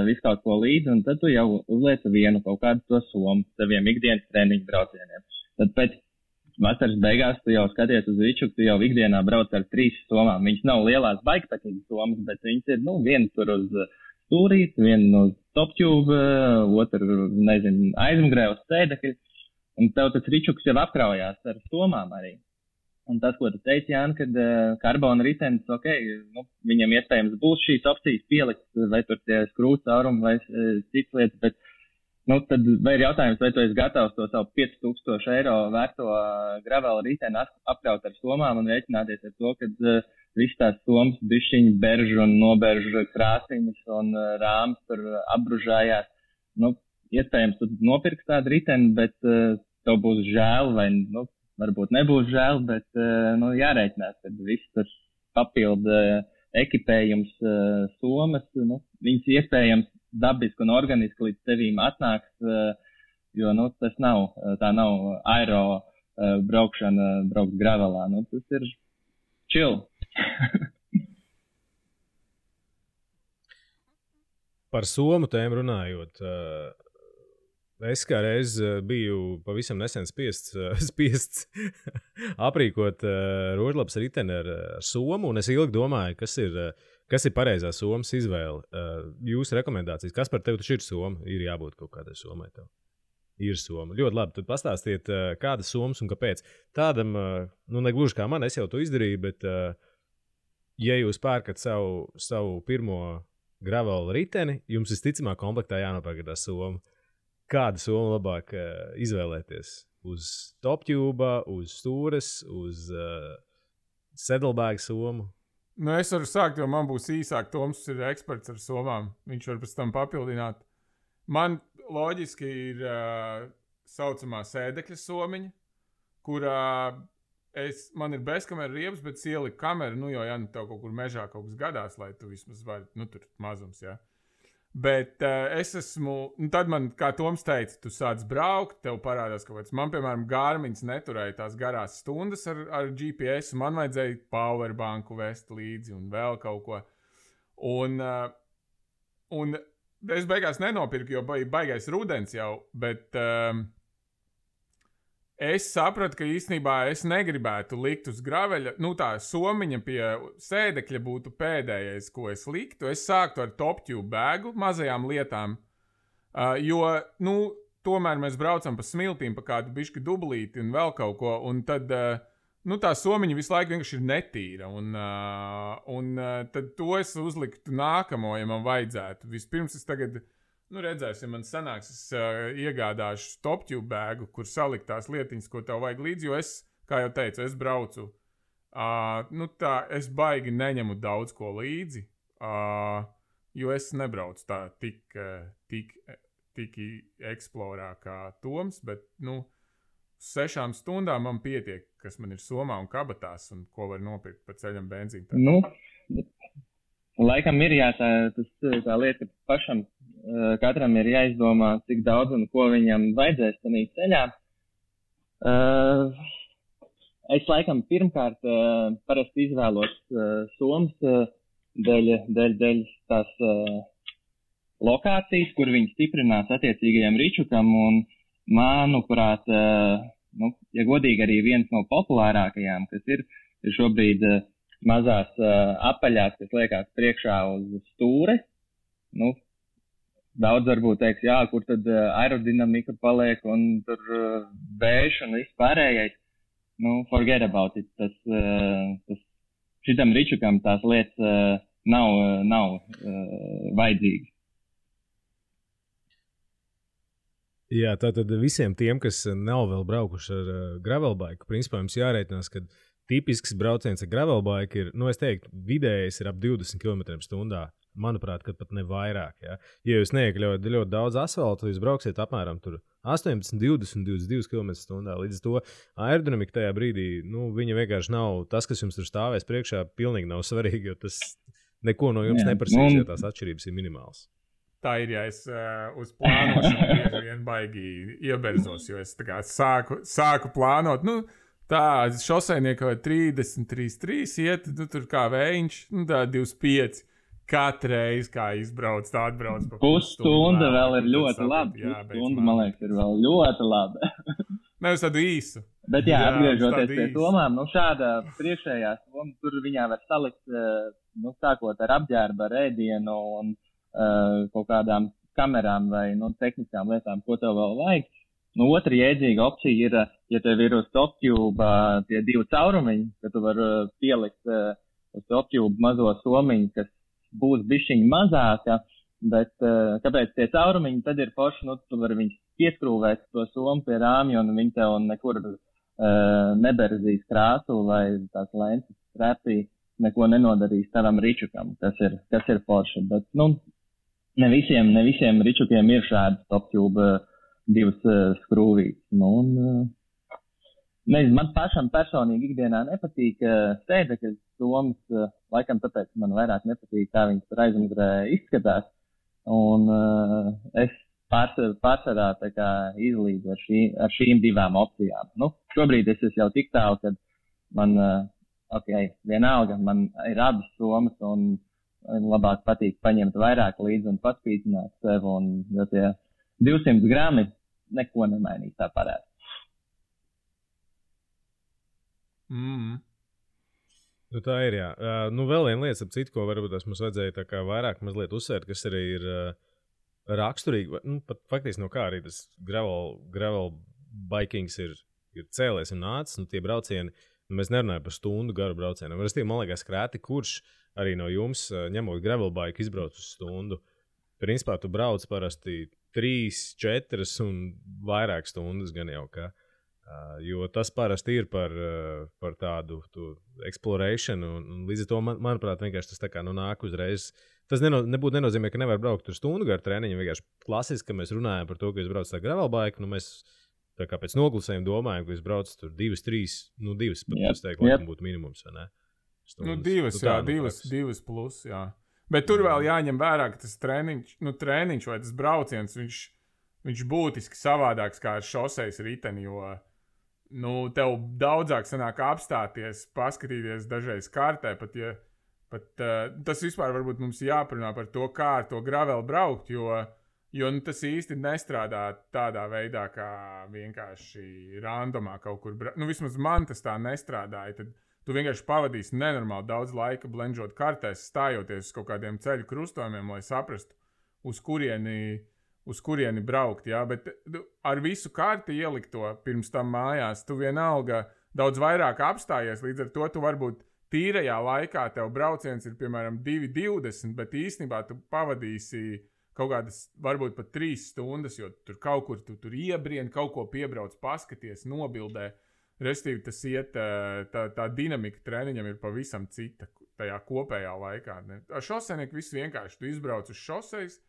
visu kaut ko līdzi, un tad tu jau uzliec vienu kaut kādu to somu saviem ikdienas treniņu braucieniem. Tad pēc vasaras beigās tu jau skaties uz viču, tu jau ikdienā brauc ar 3 somām. Viņas nav lielās baigpatīgas somas, bet viņas ir, viena tur uz stūrīt, viena uz toptube, otra, aizmugurē uz sēdekļa. Un tev tas ričuks jau apkraujās ar somām arī. Un tas, ko tu teici, Jāni, kad karbona ritenis, viņam iespējams būs šīs opcijas pielikt, vai tur tie skrūcaurumi vai cits lietas, bet, tad vai ir jautājums, vai tu esi gatavs to savu 5000 eiro vērto gravela riteni apkraut ar somām un rēķināties ar to, kad viss tās somas bišķiņi beržu un noberžu krāsiņas un rāmas tur apbružājās. Iespējams, tu nopirks tādu riteni, bet tev būs žēl vai, varbūt nebūs žēl, bet, jārēķinās, kad viss tas papildu ekipējums somas, viņas iespējams dabiski un organiski līdz tevīm atnāks, jo, tā nav aero braukšana, braukt gravelā, tas ir chill. Par somu tēmu runājot, es kā reiz biju pavisam nesen spiests aprīkot rožlapas riteni ar somu, un es ilgi domāju, kas ir pareizā somas izvēle. Jūsu rekomendācijas, kas par tevi taču ir soma? Ir jābūt kaut kādai somai tev. Ir soma. Ļoti labi, tad pastāstiet, kādas somas un kāpēc. Tādam, negluži kā man, es jau to izdarīju, bet ja jūs pērkat savu pirmo gravela riteni, jums visticamāk komplektā jānopērk tā soma. Kādu somu labāk izvēlēties? Uz toptube, uz stūres, uz saddlebag somu? Es varu sākt, jo man būs īsāk. Toms ir eksperts ar somām. Viņš var pēc tam papildināt. Man loģiski ir saucamā sēdekļa somiņa, kurā man ir bezkamera riebs, bet ieliku kameru, jo tev kaut kur mežā kaut kas gadās, lai tu vismaz vari, tur mazums, jā. Bet es esmu, tad man, kā Toms teica, tu sāc braukt, tev parādās kaut kāds. Man, piemēram, Garmins neturēja tās garās stundas ar GPS, un man vajadzēja powerbanku vest līdzi un vēl kaut ko. Un es beigās nenopirku, jo baigais rudens jau, bet es sapratu, ka īstenībā es negribētu likt uz graveļa. Tā somiņa pie sēdekļa būtu pēdējais, ko es liktu. Es sāktu ar toptube bēgu, mazajām lietām, jo, tomēr mēs braucam pa smiltīm, pa kādu bišķi dublīti un vēl kaut ko, un tad, tā somiņa visu laiku vienkārši ir netīra, un tad to es uzliktu nākamo, ja man vajadzētu. Vispirms es tagad... redzēsim, man sanāks, es iegādāšu toptube bēgu, kur salikt tās lietiņas, ko tev vajag līdzi, jo es, kā jau teicu, es braucu. Es baigi neņemu daudz ko līdzi, jo es nebraucu tā tik eksplorā kā Toms, bet, 6 stundām man pietiek, kas man ir somā un kabatās, un ko var nopirkt pa ceļam benzīnu. Nu, laikam ir tā lieta, ka pašam katram ir jāizdomā, cik daudz un ko viņam vajadzēs tanī ceļā. Es laikam pirmkārt parasti izvēlos somas dēļ tās lokācijas, kur viņi stiprinās attiecīgajam ričukam, un manuprāt, ja godīgi arī viens no populārākajām, kas ir šobrīd mazās apaļās, kas liekās priekšā uz stūres. Daudz varbūt teiks, jā, kur tad aerodinamika paliek un tur vējš un viss pārējais. Forget about it. Šitam ričukam tās lietas nav vajadzīgas. Jā, tātad visiem tiem, kas nav vēl braukuši ar gravelbaiku, principā jums jārēķinās, ka tipisks brauciens ar gravelbaiku ir, es teiktu, vidējais ir ap 20 km/h. Manuprāt, kad pat ne vairāk. Ja, ja jūs neiekļaujat ļoti daudz asfaltu, jūs brauksiet apmēram 18, 20, 22 km/h. Līdz to aerodinamika tajā brīdī, viņa vienkārši nav, tas, kas jums tur stāvēs priekšā, pilnīgi nav svarīgi, jo tas neko no jums neprasīs, ja tās atšķirības ir minimālas. Tā ir, ja es uz plānošanu vien baigi ieberzos, jo es tā kā sāku plānot, tā šosejnieka 30, 33 iet, tur kā vējiņš, tā 25. Katru reizi, kā izbrauc, tā atbrauc pa pusstunda vēl ir ļoti labi. Pusstunda, man liekas, ir vēl ļoti labi. Nevis tādu īsu. Bet jā, atgriežoties pie somām, šāda priekšējā soma, tur viņā var salikt, sākot ar apģērbu, ar ēdienu un kaut kādām kamerām vai tehniskām lietām, ko tev vēl vajag. Otra jēdzīga opcija ir, ja tev ir uz TopTube tie 2 caurumiņi, ka tu vari pielikt uz TopTube mazo somiņu, kas būs bišķiņi mazāka, bet kāpēc tie caurumiņi tad ir forši, tu vari viņus pieskrūvēt to somu pie rāmja un viņi tev nekur neberzīs krāsu vai tās lences strēpī neko nenodarīs tavam ričukam, kas ir forši, bet ne visiem ričukiem ir šādas TopTube 2 skrūvītes. Man pašam personīgi ikdienā nepatīk sēdekļu somas, laikam tāpēc man vairāk nepatīk, kā viņas tur aizmugurē izskatās. Un es pārsvarā tā kā izlīdzu ar šīm 2 opcijām. Šobrīd es esmu jau tik tālu, kad man, vienalga, man ir abas somas un labāk patīk paņemt vairāk līdzi un paspīdzināt sev, jo tie 200 grami neko nemainīs tā parāda. Tā ir, jā. Vēl viena lieta, ap citu, ko varbūt mums vajadzēja tā kā vairāk mazliet uzsvērt, kas arī ir raksturīgi, pat faktiski no kā arī tas gravel bikings ir cēlies un nācis, tie braucieni, mēs nerunājam par stundu garu braucieniem. Man liekas, krēti, kurš arī no jums, ņemot gravel bike, izbrauc uz stundu. Principā tu brauc parasti 3, 4 un vairāk stundas gan jau kā. Jo tas parasti ir par tādu exploration, un līdz ar to, manuprāt, vienkārši tas tā kā nāk uzreiz. Tas nebūtu nenozīmē, ka nevar braukt tur stundu garu treniņu, vienkārši klasiski, ka mēs runājam par to, ka jūs braucat ar gravelbaiku, mēs tā kā pēc noglusējuma domājam, ka jūs braucat tur 2, 3, 2, pat es teiktu, laikam būtu minimums, vai ne? Stundas. 2 plus, jā. Bet tur vēl jāņem vērā, ka tas treniņš vai tas brauciens, viņš būtiski savādāks kā ar šosejas riteni, jo tev daudzāk sanāk apstāties, paskatīties dažreiz kartē, pat tas vispār varbūt mums jāparunā par to, kā ar to graveli braukt, jo tas īsti nestrādā tādā veidā, kā vienkārši randomā kaut kur braukt. Vismaz man tas tā nestrādāja, tad tu vienkārši pavadīsi nenormāli daudz laika blenžot kartēs, stājoties uz kaut kādiem ceļu krustojumiem, lai saprastu, uz kurieni braukt, jā, bet ar visu karti ielikto pirms tam mājās, tu vienalga daudz vairāk apstājies, līdz ar to tu varbūt tīrajā laikā tev brauciens ir, piemēram, 2,20, bet īstenībā tu pavadīsi kaut kādas, varbūt pat 3 stundas, jo tur kaut kur tu tur iebrien, kaut ko piebrauc, paskaties, nobildē. Restīvi tas iet, tā dinamika treniņam ir pavisam cita tajā kopējā laikā. Ar šosejnieku viss vienkārši, tu izbrauc uz šosejas,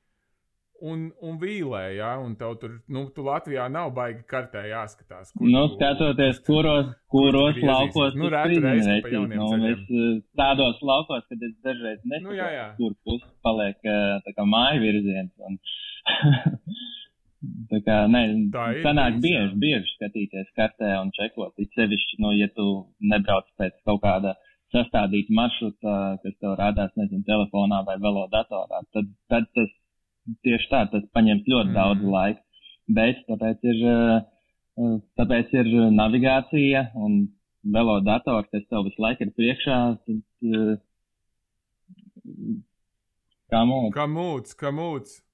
un vīlē, ja? Un tev tur, tu Latvijā nav baigi kartē jāskatās. Skatoties, kuros laukos tu reizi pa jauniem ceļiem. Tādos laukos, kad es dažreiz nesaprotu, kur pusi paliek tā kā māju virziens. Un tā kā, sanāk bieži skatīties kartē un čekot. It sevišķi, ja tu nebrauc pēc kaut kāda sastādīta maršruta, kas tev rādās, telefonā vai velodatorā, tad tas tieši tā, tas paņems ļoti daudz laika. Bet tāpēc ir navigācija un velodators, kas tev visu laiku ir priekšā. Kamūts.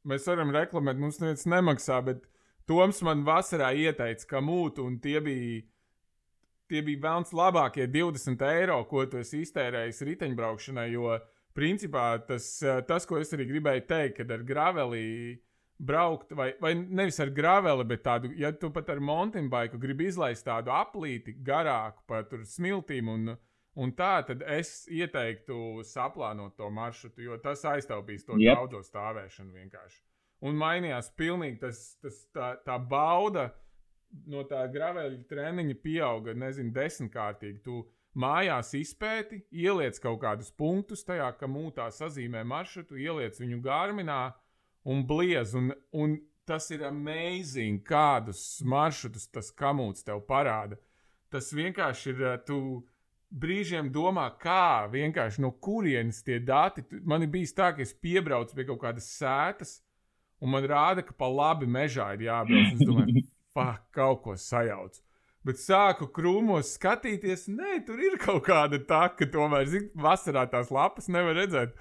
Mēs varam reklamēt, mums neviens nemaksā, bet Toms man vasarā ieteica kamūtu, un tie bija velns labākie 20 eiro, ko tu esi iztērējis riteņbraukšanai, jo principā tas, ko es arī gribēju teikt, kad ar graveli braukt, vai nevis ar graveli, bet tādu, ja tu pat ar mountain bike gribi izlaist tādu aplīti garāku pa tur smiltīm un tā, tad es ieteiktu saplānot to maršrutu, jo tas aiztaupīs to daudzo stāvēšanu vienkārši. Un mainījās pilnīgi tā bauda no tā graveļa treniņa pieauga, 10-kārtīgi. Tu mājās izpēti, ieliec kaut kādus punktus tajā, ka mūtā sazīmē maršrutu, ieliec viņu Garminā un bliez. Un tas ir amazing, kādus maršrutus tas kamūts tev parāda. Tas vienkārši ir, tu brīžiem domā, kā vienkārši no kurienes tie dati. Man ir bijis tā, ka es piebraucu pie kaut kādas sētas, un man rāda, ka pa labi mežā ir jābrauc. Es domāju, kaut ko sajaucu. Bet sāku krūmos skatīties, tur ir kaut kāda taka, tomēr, vasarā tās lapas nevar redzēt.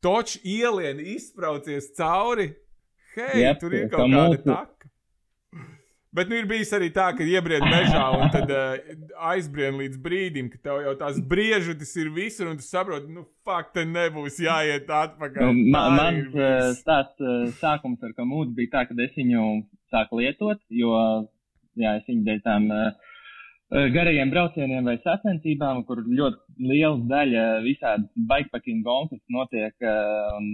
Toč ielien izspraucies cauri, tur ir kaut kāda taka. Bet ir bijis arī tā, ka iebrien mežā un tad aizbrien līdz brīdim, ka tev jau tās briežutis ir visur un tu saproti, te nebūs jāiet atpakaļ. Mans sākums ar kamūtu bija tā, kad es viņu sāku lietot, jo es viņu dēļ tām garajiem braucieniem vai sacensībām, kur ļoti liela daļa visādi bikepacking gonkas notiek un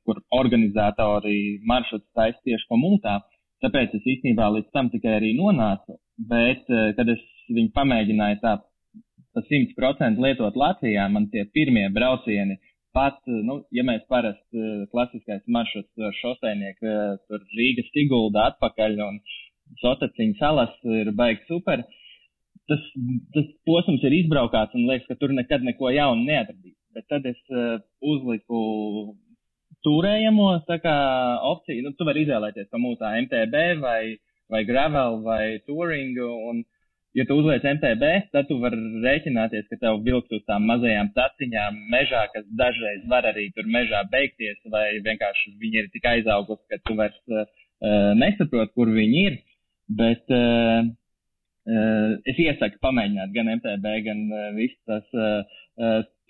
kur organizatori maršruts taisa tieši kamūtā. Tāpēc es īstenībā līdz tam tikai arī nonācu, bet, kad es viņu pamēģināju tā pa 100% lietot Latvijā, man tie pirmie braucieni pat, ja mēs parasti klasiskais maršruts šoseinieku, tur Rīga Sigulda atpakaļ un Sotaciņa salas ir baigi super, tas posms ir izbraukāts un liekas, ka tur nekad neko jaunu neatradīs. Bet tad es uzliku turējamo opciju, tu vari izvēlēties kamūtā MTB vai gravel vai touring, un ja tu uzliec MTB, tad tu vari rēķināties, ka tev vilks uz tām mazajām taciņām mežā, kas dažreiz var arī tur mežā beigties, vai vienkārši viņi ir tik aizaugusi, ka tu vairs nesaproti, kur viņi ir. Bet es iesaku pamēģināt gan MTB, gan visu tas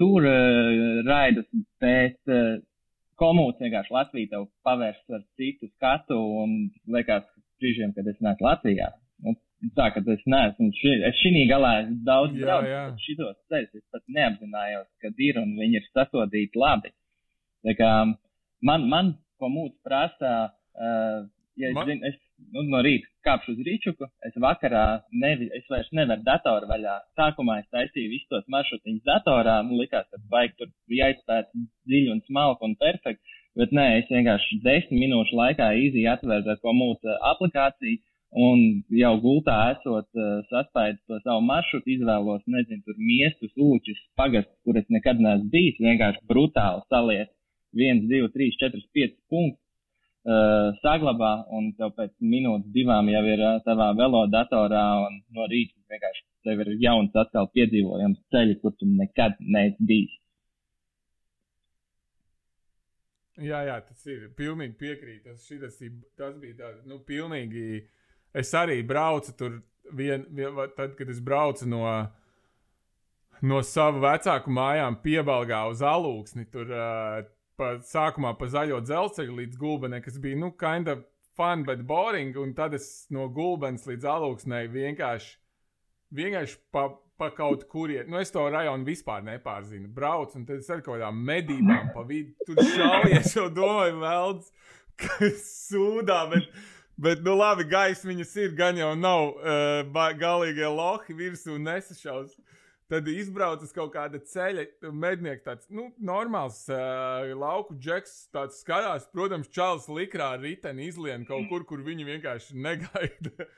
tur raidus, bet komūts vienkārši Latvija tev pavērs ar citu skatu un liekas brīžiem, kad es neesmu Latvijā. Tā, ka es neesmu, es šī galā daudz braucu, bet šitos ceļus es pat neapzinājos, kad ir un viņi ir sasodīti labi. Tā kā man komūts prasa, es no rīta kāpšu uz rīčuku, es vakarā es vairs nevaru datoru vaļā. Sākumā es taisīju visus tos maršrutiņus datorā, likās, ka baigi tur jāizpēt dziļi un smalki un perfekti, bet nē, es vienkārši 10 minūšu laikā easy atvēru ar komūta aplikāciju un jau gultā esot saspēju to savu maršrutu, izvēlos, tur miestus, ūķus, pagastus, kur es nekad neesmu bijis, vienkārši brutāli saliet 1, 2, 3, 4, 5 punktus. Saglabā un tev pēc minūtes 2 jau ir tavā velodatorā un no rīta vienkārši tev ir jauns atkal piedzīvojams ceļi, kur tu nekad neesi bijis. Jā, tas ir pilnīgi piekrīt. Tas bija tā, pilnīgi. Es arī braucu tur tad, kad es braucu no savu vecāku mājām Piebalgā uz Alūksni, tur sākumā pa zaļo dzelzceļu līdz Gulbenei, kas bija, kind of fun, bet boring, un tad es no Gulbenes līdz Alūksnei vienkārši pa kaut kurien, es to rajonu vispār nepārzinu, braucu, un tad es ar kaut kādām medībām pa vidu, tur šaujies, jau domāju, velds, sūdā, bet nu labi, gaisa viņas ir, gan jau nav galīgie lohi virsū nesašaus. Tad izbrauc uz kaut kāda ceļa, mednieks tāds, nu, normāls lauku džeks, tāds skatās, protams, čalis likrā riteni izlien kaut kur viņi vienkārši negaida.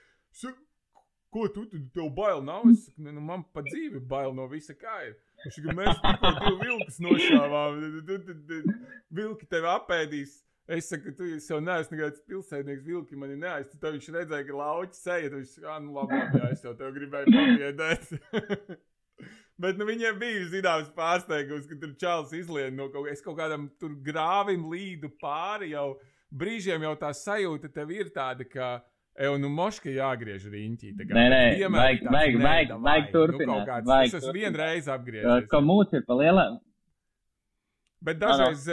Ko tu tev bail nav? Es saku, nu, man pa dzīvi bail no visa kā ir. Mēs tikko 2 vilkus nošāvām, vilki tevi apēdīs. Es saku, tu jau neesmu nekāds pilsētnieks, vilki mani neaiz. Tad viņš redzēja, ka lauķi seja, tad viņš saka, nu labi, jā, es jau tev gribēju pabiedēt. Bet nu, viņiem bija zināms pārsteigums, ka tur čalis izlien no kaut kādam tur grāvim līdu pāri jau. Brīžiem jau tā sajūta tev ir tāda, ka nu moška jāgriež riņķī. Nē, vajag turpināt. Nu, es esmu vienreiz apgriežies. Ka mūs ir pa lielā. Bet dažreiz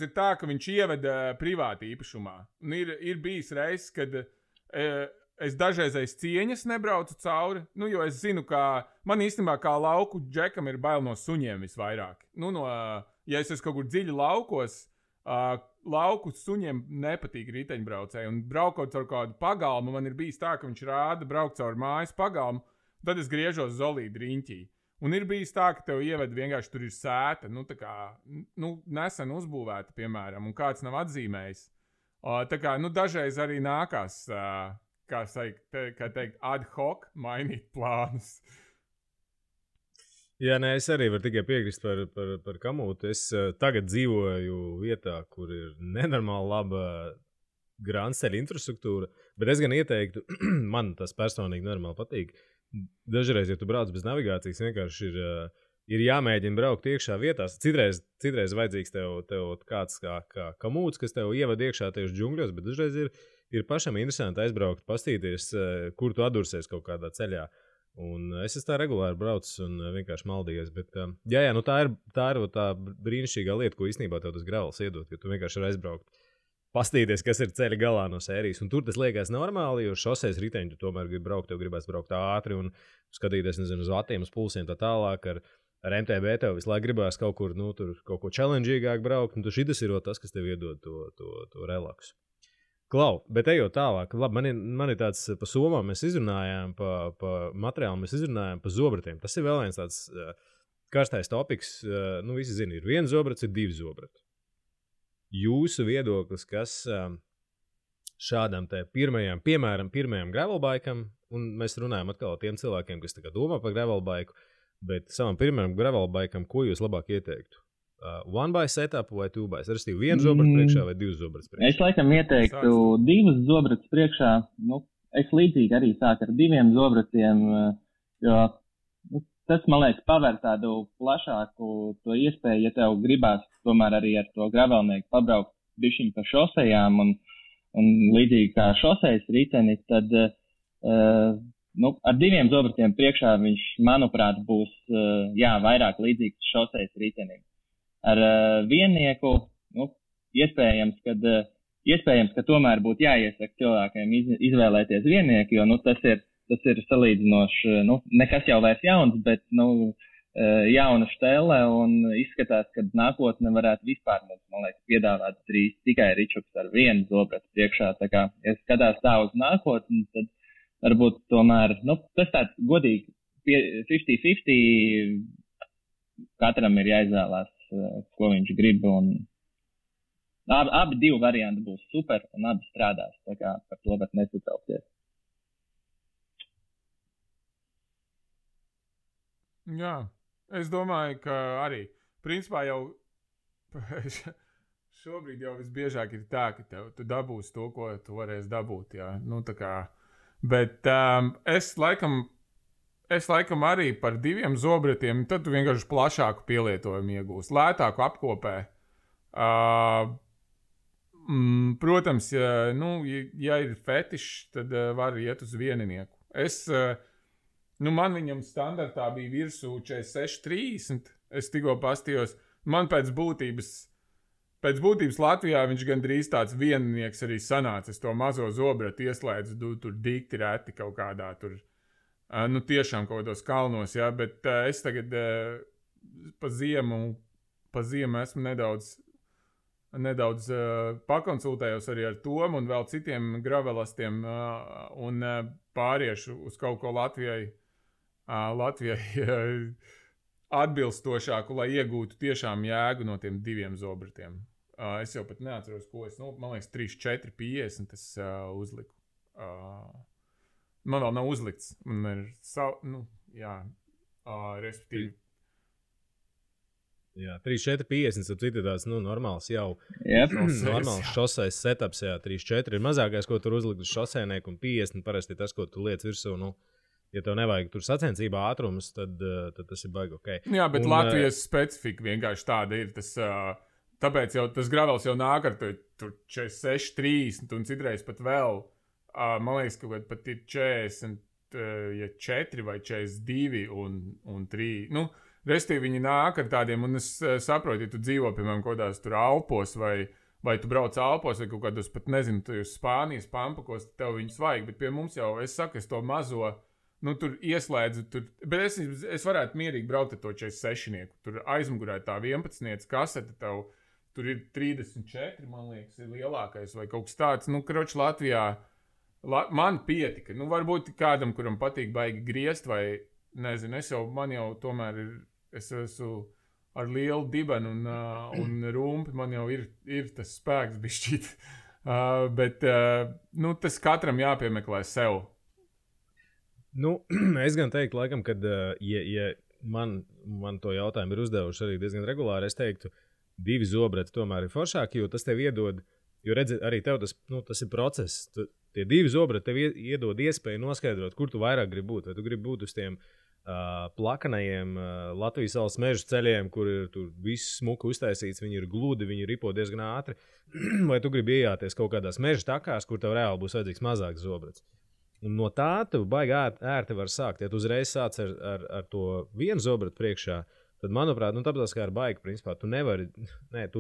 ir tā, ka viņš ieveda privāti īpašumā. Un ir bijis reizes, kad es dažreizais cieņas nebraucu cauri, nu, jo es zinu, ka man īstenībā kā lauku džekam ir bail no suņiem visvairāk. Nu, ja es esmu kaut kur dziļi laukos, lauku suņiem nepatīk riteņbraucēji, un braukot caur kādu pagalmu, man ir bijis tā, ka viņš rāda braukt caur mājas pagalmu, tad es griežos zolīdi riņķī. Un ir bijis tā, ka tev ieved vienkārši tur ir sēta, nu, tā kā, nu, nesen uzbūvēta, piemēram, un kāds nav atzīmējis. Tā kā, nu, dažreiz arī nākās, kā teikt, ad hoc mainīt plānus. Jā, nē, es arī varu tikai piekrist par Kamūtu. Es tagad dzīvoju vietā, kur ir nenormāli laba grānceļa infrastruktūra, bet es gan ieteiktu, man tas personīgi normāli patīk. Dažreiz, ja tu brauc bez navigācijas, vienkārši ir jāmēģina braukt iekšā vietās. Citreiz vajadzīgs tev kāds kā Kamūts, kas tev ievada iekšā tieši džungļos, bet dažreiz ir pašam interesanti aizbraukt, pastīties, kur tu atdursies kaut kādā ceļā. Un es tā regulāri braucu un vienkārši maldījies. Bet, jā, nu tā ir tā brīnišķīgā lieta, ko īstenībā tev tas gravels iedod, ka tu vienkārši var aizbraukt, pastīties, kas ir ceļa galā no sērijas. Un tur tas liekas normāli, jo šoseis riteņi tu tomēr gribi braukt, tev gribēs braukt ātri un skatīties, nezinu, uz vatiem, uz pulsiem tā tālāk. Ar MTB tev visu laiku gribēs kaut kur, nu, tur kaut ko challengeīgāk braukt, un šitas ir tas, kas tev iedod to relaksu. Klau, bet ejot tālāk, labi, man ir tāds pa somām mēs izrunājām, pa materiālu mēs izrunājām, pa zobratiem. Tas ir vēl viens tāds karstais topiks. Nu, visi zina, ir 1 zobrats, ir 2 zobrati. Jūsu viedoklis, kas šādam te pirmajam gravelbikam, un mēs runājam atkal tiem cilvēkiem, kas tā kā domā par gravelbiku, bet savam pirmajam gravelbikam, ko jūs labāk ieteiktu? 1-by setup vai 2-by? Restīvi 1 zobrats priekšā vai 2 zobrats priekšā? Es laikam ieteiktu 2 zobrats priekšā. Nu, es līdzīgi arī sāku ar 2 zobratiem, jo nu, tas, man liekas, paver tādu plašāku to iespēju, ja tev gribās tomēr arī ar to gravelnieku pabraukt bišķiņ pa šosejām un līdzīgi kā šosejas riteni, tad nu, ar 2 zobratiem priekšā viņš, manuprāt, būs vairāk līdzīgs šosejas ritenim. Ar viennieku, nu, iespējams, ka tomēr būtu jāiesaka cilvēkiem izvēlēties viennieku, jo, nu, tas ir salīdzinoši, nu, nekas jau vairs jauns, bet, nu, jauna štele un izskatās, ka nākotne varētu vispār, man liekas, piedāvāt drīz tikai ričuks ar 1 zobratu priekšā. Tā kā, ja skatās tā uz nākotni, tad varbūt tomēr, nu, tas tāds godīgi 50-50 katram ir jāizvēlās, ko viņš grib, un abi 2 varianti būs super, un abi strādās, tā kā par to var nesatraukties. Jā, es domāju, ka arī, principā jau šobrīd jau visbiežāk ir tā, ka tu dabūsi to, ko tu varēsi dabūt, jā, nu tā kā, bet es laikam arī par 2 zobratiem, tad tu vienkārši plašāku pielietojumu iegūsi, lētāku apkopē. Protams, ja ir fetišs, tad var iet uz vieninieku. Man viņam standartā bija virsū 46-30, es tikko pastījos, man pēc būtības Latvijā viņš gandrīz tāds vieninieks arī sanāca, es to mazo zobratu ieslēdzu, tur dikti reti kaut kādā tur, nu tiešām kaut kādos kalnos, jā, bet es tagad pa ziemu esmu nedaudz nedaudz pakonsultējos arī ar Tomu un vēl citiem gravelastiem un pāriešu uz kaut ko Latvijai atbilstošāku, lai iegūtu tiešām jēgu no tiem 2 zobratiem. Es jau pat neatceros, ko es, man liekas, 3, 4, 50 es uzliku. Man vēl nav uzlikts. Man ir respektīvi. Jā, 3, 4, 50, tad ir tāds, normāls jau. Normāls šoseis setups, 3, 4 ir mazākais, ko tur uzlikt uz šosēnieku, un 50 parasti tas, ko tu liec virsū, ja tev nevajag tur sacensībā ātrumus, tad tas ir baigi ok. Jā, bet Latvijas specifika vienkārši tāda ir. Tāpēc jau tas gravels jau nāk ar tur 46, 30 un citreiz pat vēl. Man liekas, ka pat ir 44 vai 42 un 3. Restīvi viņi nāk ar tādiem, un es saprotu, ja tu dzīvo, piemēram, kodās tur Alpos, vai tu brauc Alpos, vai kaut kādos pat, nezinu, tu Spānijas pampakos, tev viņus vajag, bet pie mums jau, es saku, es to mazo, tur ieslēdzu, bet es varētu mierīgi braukt ar to 46-nieku, tur aizmugurē tā 11-niec kasete tev, tur ir 34, man liekas, ir lielākais, vai kaut kas tāds, kroč Latvijā, man pietika, varbūt kādam, kuram patīk baigi griezt, vai, nezinu, man jau tomēr ir, es esmu ar lielu dibenu un rumpi, man jau ir tas spēks bišķīt. Bet tas katram jāpiemeklē sev. Es gan teiktu, laikam, kad ja man to jautājumu ir uzdevuši arī diezgan regulāri, es teiktu, 2 zobrati tomēr ir foršāki, jo tas tev iedod, jo redzi, arī tev tas ir process. Tie 2 zobrati tev iedod iespēju noskaidrot, kur tu vairāk gribi būt. Vai tu gribi būt uz tiem plakanajiem Latvijas valsts mežu ceļiem, kur ir tur viss smuki uztaisīts, viņi ir gludi, viņi ripo diezgan ātri, vai tu gribi iejāties kaut kādās meža takās, kur tev reāli būs vajadzīgs mazāks zobrats. Un no tā tu baigi ērti var sākt. Ja tu uzreiz sāc ar to 1 zobratu priekšā, tad, manuprāt, tāpēc kā ar baigi, principā, tu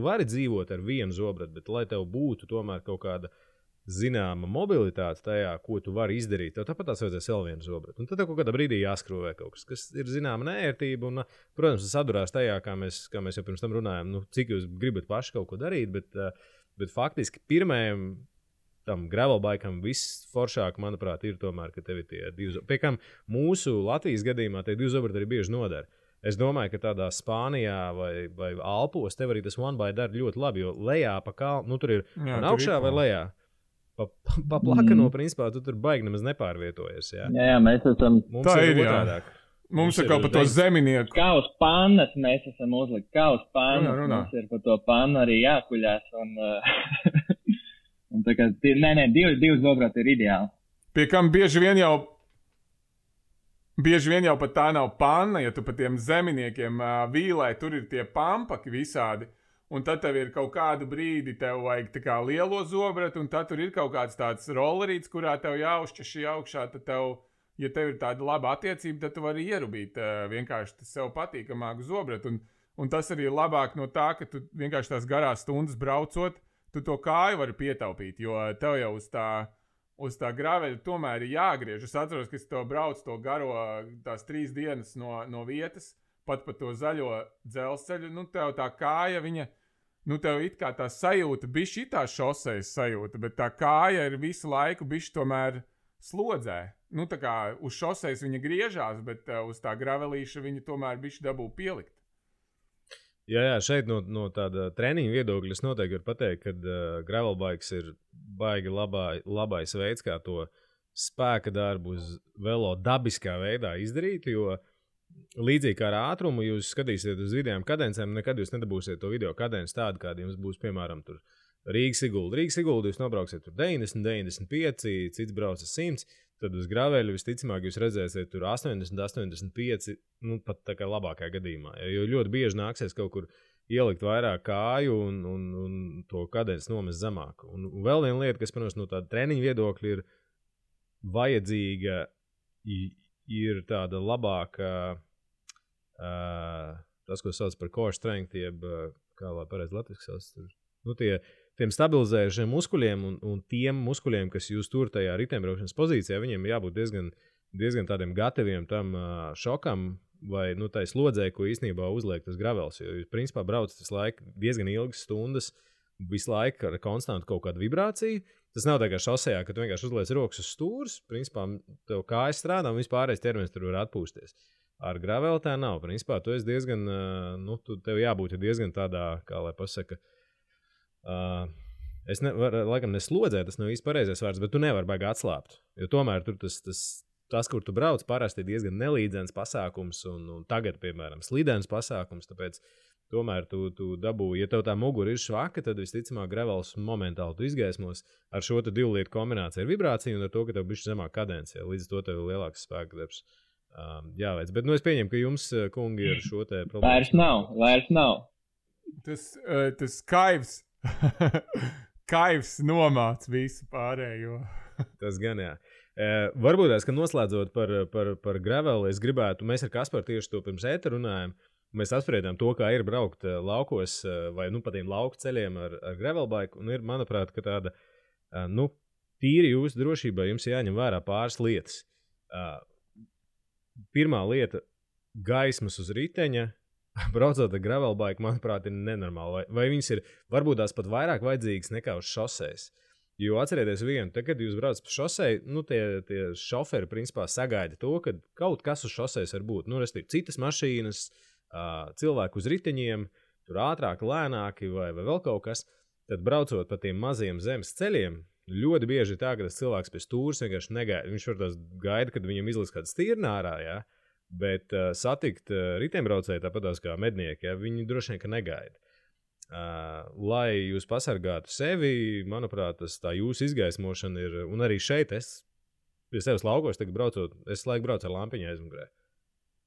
vari dzīvot ar 1 zobratu, bet lai tev būtu tomēr kaut kāda zināma mobilitāte tajā, ko tu vari izdarīt, tev tāpat tās vajadzēs vēl 1 zobratu. Un tad tev kaut kādā brīdī jāskrūvē kaut kas ir zināma nērtība. Un, protams, tas sadurās tajā, kā mēs jau pirms tam runājām, cik jūs gribat paši kaut ko darīt, bet faktiski pirmajam tam gravelbikam viss foršāk, manuprāt, ir tomēr, ka tev ir tie 2 zobrati. Pie kam mūsu Latvijas gadījumā tie 2 zobrati arī bieži nodara. Es domāju, ka tādā Spānijā vai Alpos tev arī tas one-by dara ļoti labi, jo lejā pa kalnu, tur ir augšā vai lejā. Pa plakano, principā, tu tur baigi nemaz nepārvietojies. Jā, mēs esam. Tā ir otrādāk. Mums ir kaut pa to zeminieku. Kā uz pannas mēs esam uzlikt. Kā uz pannas mums ir pa to pannu arī jākuļās. Un tā kā, divi zobrati ir ideāli. Pie kam bieži vien jau pat tā nav panna, ja tu pa tiem zeminiekiem vīlē, tur ir tie pampaki visādi. Un tad tev ir kaut kādu brīdi, tev vajag tā kā lielo zobratu, un tad tur ir kaut kāds tāds rollerīts, kurā tev jāuzšķaši augšā, tad ja tev ir tāda laba attiecība, tad tu vari ierubīt vienkārši sev patīkamāku zobratu. Un tas arī ir labāk no tā, ka tu vienkārši tās garās stundas braucot, tu to kāju vari pietaupīt, jo tev jau uz tā graveļa tomēr ir jāgriež. Es atceros, ka es to braucu to garo tās 3 dienas no vietas, pat pa to zaļo dzelzceļu, tev tā kāja, viņa, tev it kā tā sajūta, bišķi tā šosejas sajūta, bet tā kāja ir visu laiku bišķi tomēr slodzē. Tā kā uz šosejas viņa griežās, bet uz tā gravelīša viņa tomēr bišķi dabū pielikt. Jā, šeit no tāda treniņa viedokļa es noteikti varu pateikt, ka gravelbikes ir baigi labais veids, kā to spēka darbu uz velo dabiskā veidā izdarīt, jo līdzīgi kā ar ātrumu, jūs skatīsiet uz vidējām kadencēm, nekad jūs nedabūsiet to video kadenci tādu, kāda jums būs, piemēram, tur Rīgas-Sigulda. Rīgas-Sigulda jūs nobrauksiet tur 90, 95, cits brauc 100, tad uz graveļu visticamāk jūs redzēsiet tur 80, 85, pat tā kā labākajā gadījumā. Jo ļoti bieži nāksies kaut kur ielikt vairāk kāju un to kadenci nomest zemāk. Un vēl viena lieta, kas, protams, no tāda treniņa viedokļa ir vajadzīga, ir tāda labāka, tas, ko sauc par core strength, jeb, kā lai pareizi latviski sauc, tiem stabilizējušiem muskuļiem un tiem muskuļiem, kas jūs tur tajā riteņbraukšanas pozīcijā, viņiem jābūt diezgan tādiem gataviem tam šokam vai tai slodzē, ko īstenībā uzliek tas gravels. Jo jūs, principā, braucat visu laiku diezgan ilgas stundas visu laiku ar konstantu kaut kādu vibrāciju. Tas nav tā kā šosejā, ka tu vienkārši uzliec rokas uz stūres, principā tev kājas strādā un vispārējais ķermenis tur var atpūsties. Ar graveli tā nav. Principā tu esi diezgan, tev jābūt diezgan tādā, kā lai pasaka, es laikam neslodzē, tas nav īsti pareizais vārds, bet tu nevari baigi atslābt. Jo tomēr tur tas, kur tu brauc, parasti ir diezgan nelīdzens pasākums un tagad, piemēram, slidens pasākums, tāpēc tomēr tu dabūji, ja tev tā mugura ir švaka, tad visticamāk gravels momentāli tu izgaismos ar šo 2 lietu kombināciju ar vibrāciju un ar to, ka tev bišķi zemāk kadence, līdz to tev ir lielāks spēka darbs jāveic. Bet es pieņemu, ka jums, kungi, ir šo te problēmu. Vairs nav. Tas kaivs nomāc visu pārējo. Tas gan, jā. Varbūt ka noslēdzot par graveli, es gribētu, mēs ar Kasparu tieši to pirms ēta runājam, mēs apspriedām to, kā ir braukt laukos vai pa tiem lauku ceļiem ar gravelbaiku, un ir, manuprāt, ka tāda, tīri jūsu drošībā jums jāņem vērā pāris lietas. Pirmā lieta - gaismas uz riteņa, braucot ar gravelbaiku, manuprāt, ir nenormāli. Vai viņas ir varbūt tās pat vairāk vajadzīgas nekā uz šosejas? Jo atcerieties vienu, tad, kad jūs braucat pa šoseju, tie šoferi principā sagaida to, ka kaut kas uz šosejas var būt. Restīvi, citas mašīnas, cilvēki uz riteņiem, tur ātrāk, lēnāki vai vēl kaut kas, tad braucot pa tiem maziem zemes ceļiem, ļoti bieži ir tā, ka tas cilvēks pie stūres vienkārši negaida. Viņš var tās gaida, kad viņam izliks kāda stirna ārā, jā, bet satikt riteņbraucēju tāpatās kā mednieki, jā, viņi droši vien, ka negaida. Lai jūs pasargātu sevi, manuprāt, tā jūsu izgaismošana ir, un arī šeit es pie sevis laukos, tagad braucot, es laiku braucu ar lampiņu aizmugurē.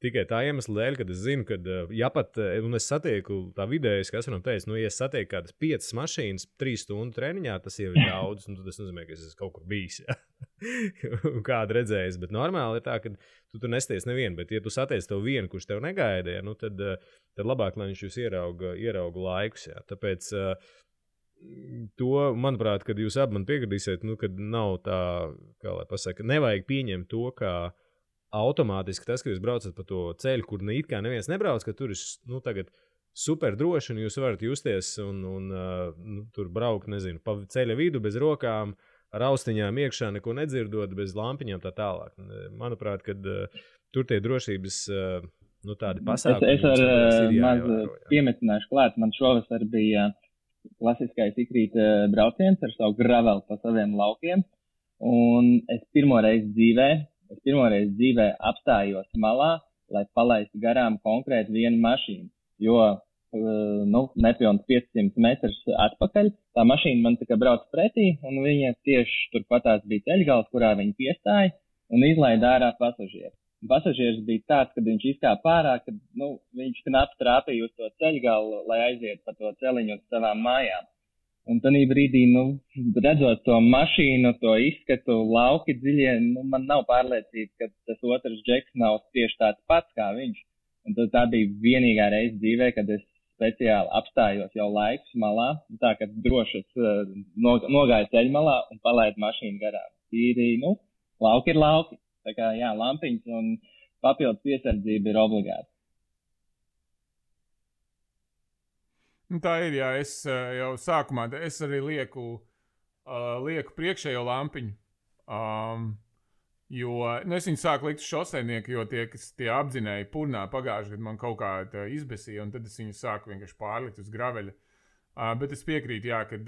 Tikai tā iemesla dēļ, kad es zinu, ka, ja pat, un es satieku tā vidējas, kas varam teikt, ja es satieku kādas 5 mašīnas 3 stundu treniņā, tas jau ir daudz, un tas nozīmē, ka es esmu kaut kur bijis, ja? Kādu redzējis, bet normāli ir tā, ka tu tur nesties nevienu, bet ja tu satiec tev vienu, kurš tev negaida, ja, tad labāk, lai viņš jūs ierauga laikus, ja? Tāpēc to, manuprāt, kad jūs abi man piekritīsiet, kad nav tā, kā lai pasaka, nevajag pieņemt to, kā automātiski tas, ka jūs braucat pa to ceļu, kur it kā neviens nebrauc, ka tur ir tagad super droši, un jūs varat justies un tur braukt, nezinu, pa ceļa vidu bez rokām, ar austiņām iekšā, neko nedzirdot, bez lampiņām tā tālāk. Manuprāt, kad tur tie drošības tādi pasākumi. Es ar maz piemetināšu klāt, man šovasar bija klasiskais ikrīt brauciens ar savu graveli pa saviem laukiem, un es pirmoreiz dzīvē apstājos malā, lai palaistu garām konkrēti vienu mašīnu, jo, nepilns 500 metrus atpakaļ, tā mašīna man tikai brauc pretī, un viņa tieši turpatās bija ceļgals, kurā viņa piestāja un izlaida ārā pasažieru. Pasažieris bija tāds, kad viņš izkāpa ārā, kad, viņš knapi trāpīja uz to ceļgalu, lai aiziet pa to celiņu uz savām mājām. Un tādā brīdī, redzot to mašīnu, to izskatu, lauki dziļie, man nav pārliecība, ka tas otrs džeks nav tieši tāds pats kā viņš. Un tā bija vienīgā reize dzīvē, kad es speciāli apstājos jau laikus malā, tā, ka droši nogāju ceļmalā un palaidu mašīnu garām. Tīri, lauki ir lauki. Tā kā, jā, lampiņas un papildus piesardzība ir obligāta. Tā ir, jā, es jau sākumā, es arī lieku priekšējo lampiņu, jo, es viņu sāku likt šoseinieku, jo tie apdzinēji purnā pagājuši, kad man kaut kā izbesīja, un tad es viņu sāku vienkārši pārlikt uz graveļa. Bet es piekrītu, jā, kad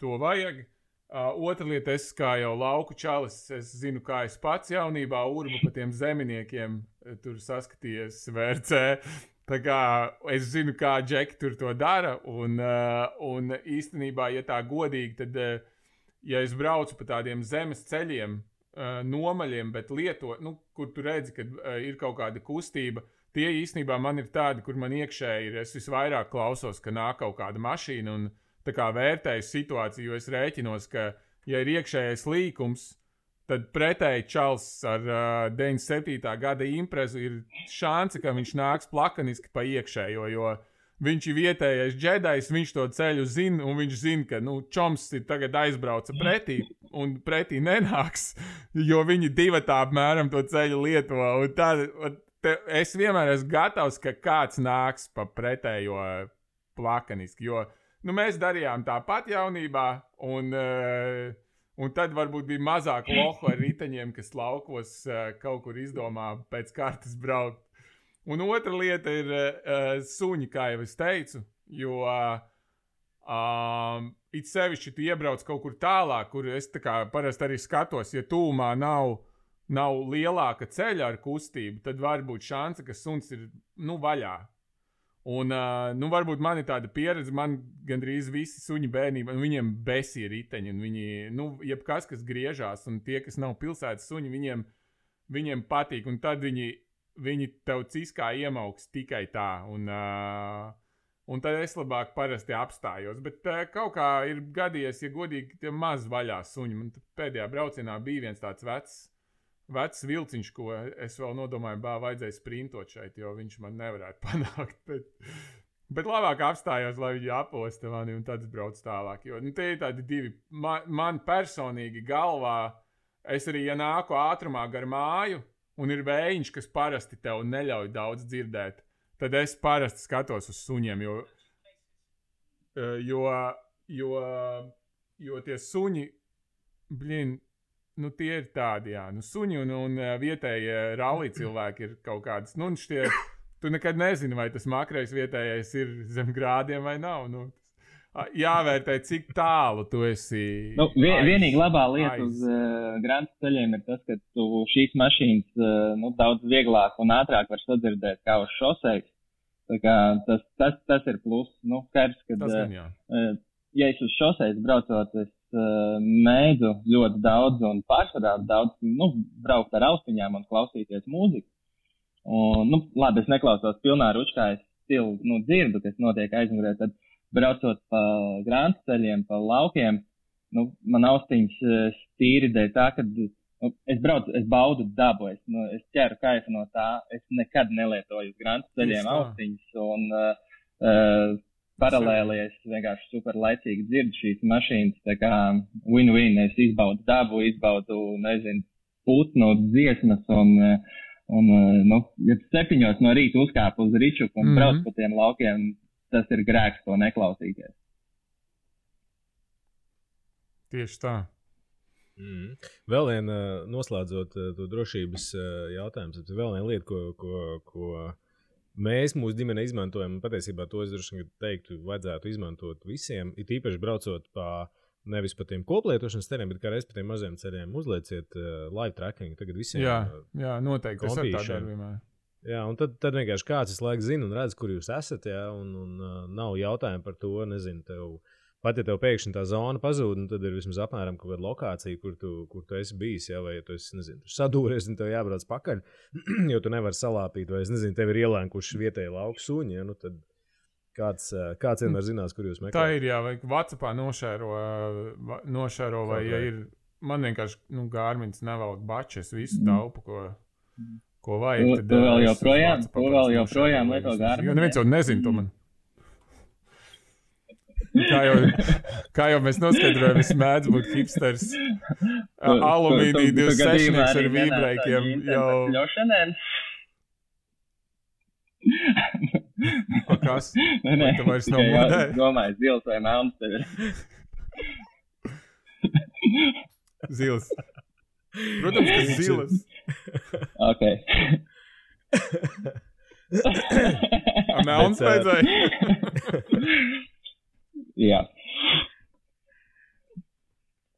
to vajag. Otra lieta, es kā jau lauku čalis, es zinu, kā es pats jaunībā urbu pa tiem zeminiekiem, tur saskatījies VRC. Tā kā es zinu, kā džeki tur to dara, un īstenībā, ja tā godīgi, tad, ja es braucu pa tādiem zemes ceļiem, nomaļiem, bet kur tu redzi, kad ir kaut kāda kustība, tie īstenībā man ir tādi, kur man iekšēji ir, es visvairāk klausos, ka nāk kaut kāda mašīna, un tā kā vērtēju situāciju, jo es rēķinos, ka, ja ir iekšējais līkums, tad pretēji čals ar 97. gada imprezu ir šanse, ka viņš nāks plakaniski pa iekšējo, jo viņš ir vietējais džedajs, viņš to ceļu zina, un viņš zina, ka, čoms ir tagad aizbrauca pretī, un pretī nenāks, jo viņi divatā apmēram to ceļu lieto, un es vienmēr esmu gatavs, ka kāds nāks pa pretējo plakaniski, jo mēs darījām tāpat jaunībā, un tad varbūt bija mazāk lohu ar riteņiem, kas laukos kaut kur izdomā pēc kārtas braukt. Un otra lieta ir suņi, kā jau es teicu, jo it sevišķi tu iebrauc kaut kur tālāk, kur es tā kā parasti arī skatos, ja tūmā nav lielāka ceļa ar kustību, tad var būt šansa, ka suns ir, vaļā. Un, varbūt man ir tāda pieredze, man gandrīz visi suņi bērnībā, viņiem besi ir riteņi, un viņi, jebkas, kas griežās, un tie, kas nav pilsētas suņi, viņiem patīk, un tad viņi tev ciskā iemauks tikai tā, un tad es labāk parasti apstājos, bet kaut kā ir gadījies, ja godīgi, tie maz vaļā suņi, man pēdējā braucienā bija viens tāds vecs vilciņš, ko es vēl nodomāju, vajadzēja sprintot šeit, jo viņš man nevarētu panākt. Bet labāk apstājos, lai viņi aposta mani un tad brauc tālāk. Jo tie ir tādi divi. Man personīgi galvā, es arī, ja nāku ātrumā gar māju un ir vējiņš, kas parasti tev neļauj daudz dzirdēt, tad es parasti skatos uz suņiem, jo tie suņi, tie ir tādi, jā. Suņi un vietējie rallī cilvēki ir kaut kādas, tu nekad nezini, vai tas makrais vietējais ir zem grādiem vai nav. Jāvērtē, cik tālu tu esi. Vienīgi labā lieta uz grantas ceļiem ir tas, ka tu šīs mašīnas daudz vieglāk un ātrāk var sadzirdēt kā uz šoseis. Tā kā tas ir plus. Skaidrs, ka, ja es uz šoseis braucot, es mēdzu ļoti daudz un pārsvarā daudz, braukt ar austiņām un klausīties mūziku. Un, labi, es neklausos pilnā ručkā, es stilu, dzirdu, kas notiek aizmugurē, tad braucot pa grantas ceļiem, pa laukiem, man austiņas tīri dēļ tā, ka es baudu dabu, es ķeru kaifu no tā, es nekad nelietoju uz grantas ceļiem austiņas un paralēli es vienkārši super laicīgi dzirdu šīs mašīnas, tā kā win-win, es izbaudu dabu, putnu dziesmas un ja 7 no rīta uzkāpu uz ričuku un brauc pa tiem laukiem, tas ir grēks to neklausīties. Tieši tā. Vēl viena, noslēdzot to drošības jautājumu, vēl viena lieta, ko mēs mūsu ģimene izmantojam, un patiesībā to es droši teiktu, vajadzētu izmantot visiem, it īpaši braucot nevis pa tiem koplietošanas ceļiem, bet kā reiz pa tiem maziem ceļiem uzlieciet live tracking. Tagad visiem jā, noteikti, tas ir tā darbībā. Jā, un tad vienkārši kāds visu laiku zina un redz, kur jūs esat, un nav jautājumu par to, nezinu, pat ja tev pēkšņi tā zona pazūd, tad ir vismaz apmēram kaut kāda lokācija, kur tu esi bijis, vai ja tu esi, sadūries un tev jābrauc pakaļ, jo tu nevari salāpīt, vai tev ir ielēnkuši vietēji lauku suņi, tad kāds vienmēr zinās, kur jūs meklējat. Tā ir, jā, vai WhatsAppā nošēro vai ja ir, man vienkārši, Garmins nevelk bačes, visu taupu, ko vajag. Tu vēl joprojām lieto Garmin. Jo neviens jau nezin to man. Kā jau mēs noskaidrojam, es mēdzu būt hipsters. Alumīnija 26 ar vībreikiem jau. Kas? Vai tu vairs nav modē? Domāju, zils vai melns tev ir. Zils. Protams, ka zilas. Ok. Melns vajadzēja? Jā.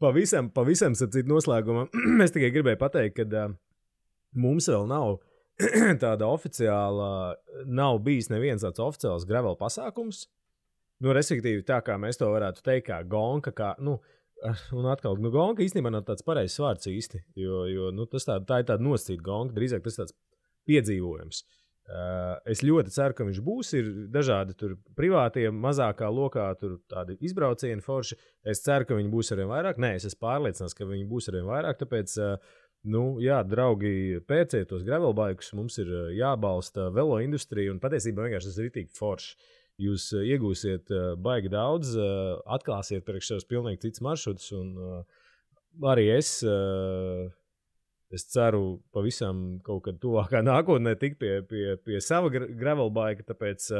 Pavisam sapcīt noslēgumā. Es tikai gribēju pateikt, ka mums vēl nav tāda oficiāla, nav bijis neviens tāds oficiāls gravel pasākums. Respektīvi tā, kā mēs to varētu teikt, kā gonka, un atkal, gonka īstenībā nav tāds pareizs vārds īsti, jo tā ir tāda nosacīta gonka, drīzāk tas tāds piedzīvojums. Es ļoti ceru, ka viņš būs, ir dažādi tur privātie, mazākā lokā, tur tādi izbraucieni forši. Es ceru, ka viņi būs arvien vairāk. Nē, es esmu pārliecināts, ka viņi būs arvien vairāk, tāpēc, jā, draugi, pērciet tos gravelbaikus, mums ir jābalsta velo industrija, un patiesībā vienkārši tas ir ritīgi forši. Jūs iegūsiet baigi daudz, atklāsiet priekš savus pilnīgi cits maršrutus, un arī es ceru pavisam kaut kad tuvākā nākotnē tikt pie sava gravelbaika, tāpēc,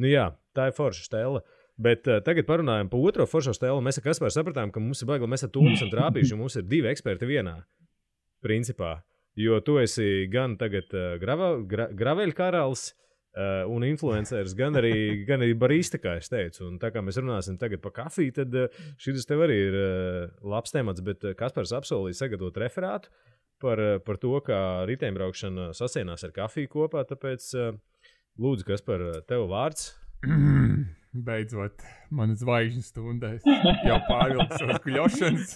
jā, tā ir forša stela. Bet tagad parunājam par otro foršo stēlu. Mēs ar Kasparu sapratām, ka mums ir baigi, mēs ar Tūmu esam trāpījuši, un mums ir 2 eksperti vienā, principā. Jo tu esi gan tagad graveļu karalis un influenceris, gan arī barista, kā es teicu. Un tā kā mēs runāsim tagad par kafiju, tad šis tev arī ir labs temats, bet Kaspars apsolīja sagatavot referātu par to, kā riteņbraukšana sasienās ar kafiju kopā, tāpēc lūdzu, Kaspar, tev vārds. Beidzot, manas zvaigžņu stundēs jau pārvilku savas kuļošanas.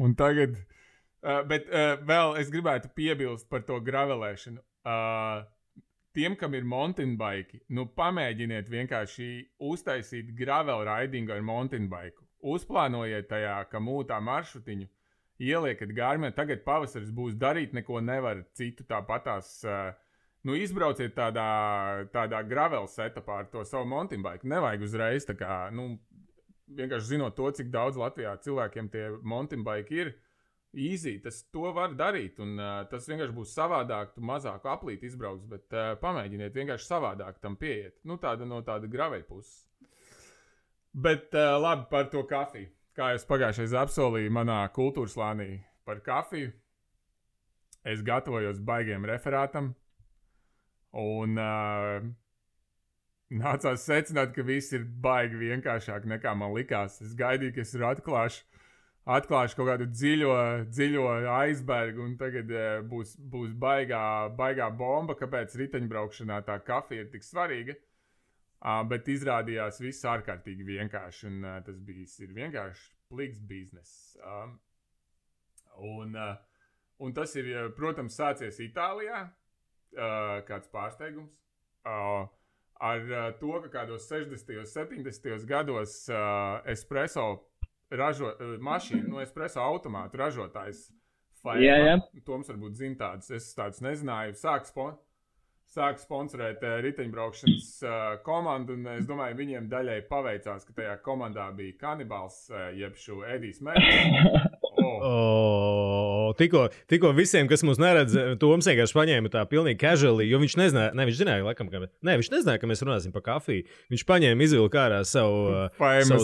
Un tagad, bet vēl es gribētu piebilst par to gravelēšanu. Tiem, kam ir mountain bike, pamēģiniet vienkārši uztaisīt gravel ridingu ar mountain bike. Uzplānojiet tajā, ka mūtā maršrutiņu, ieliekat Garmin, tagad pavasaris būs, darīt neko nevar citu tāpatās. Izbrauciet tādā gravel setupā ar to savu mountain bike. Nevajag uzreiz tā kā, vienkārši zinot to, cik daudz Latvijā cilvēkiem tie mountain bike ir, easy, to var darīt, un tas vienkārši būs savādāk, tu mazāku aplīti izbrauks, bet pamēģiniet vienkārši savādāk tam pieiet. No tāda graveļa puses. Bet labi par to kafiju. Kā es pagājušais apsolīju manā kultūras slānī par kafiju, es gatavojos baigiem referātam, un nācās secināt, ka viss ir baigi vienkāršāk nekā man likās. Es gaidīju, ka es atklāšu kaut kādu dziļo aizbergu, un tagad būs baigā bomba, kāpēc riteņbraukšanā tā kafija ir tik svarīga. Bet izrādījās viss ārkārtīgi vienkārši, un tas ir vienkārši pliks biznes. Un tas ir, protams, sācies Itālijā, kāds pārsteigums. Ar to, ka kādos 60. 70. gados espresso espresso automātu ražotājs Faema, Toms varbūt zina tādus, es tādus nezināju, sāk sponsorēt riteņbraukšanas komandu, un es domāju, viņiem daļai paveicās, ka tajā komandā bija kanibāls, jeb šo Edijs Mērķis. Tikko visiem, kas mūs neredz, Toms vienkārši paņēma tā pilnīgi casually, jo viņš nezināja, viņš nezināja, ka mēs runāsim par kafiju. Viņš paņēma izvilku ārā savu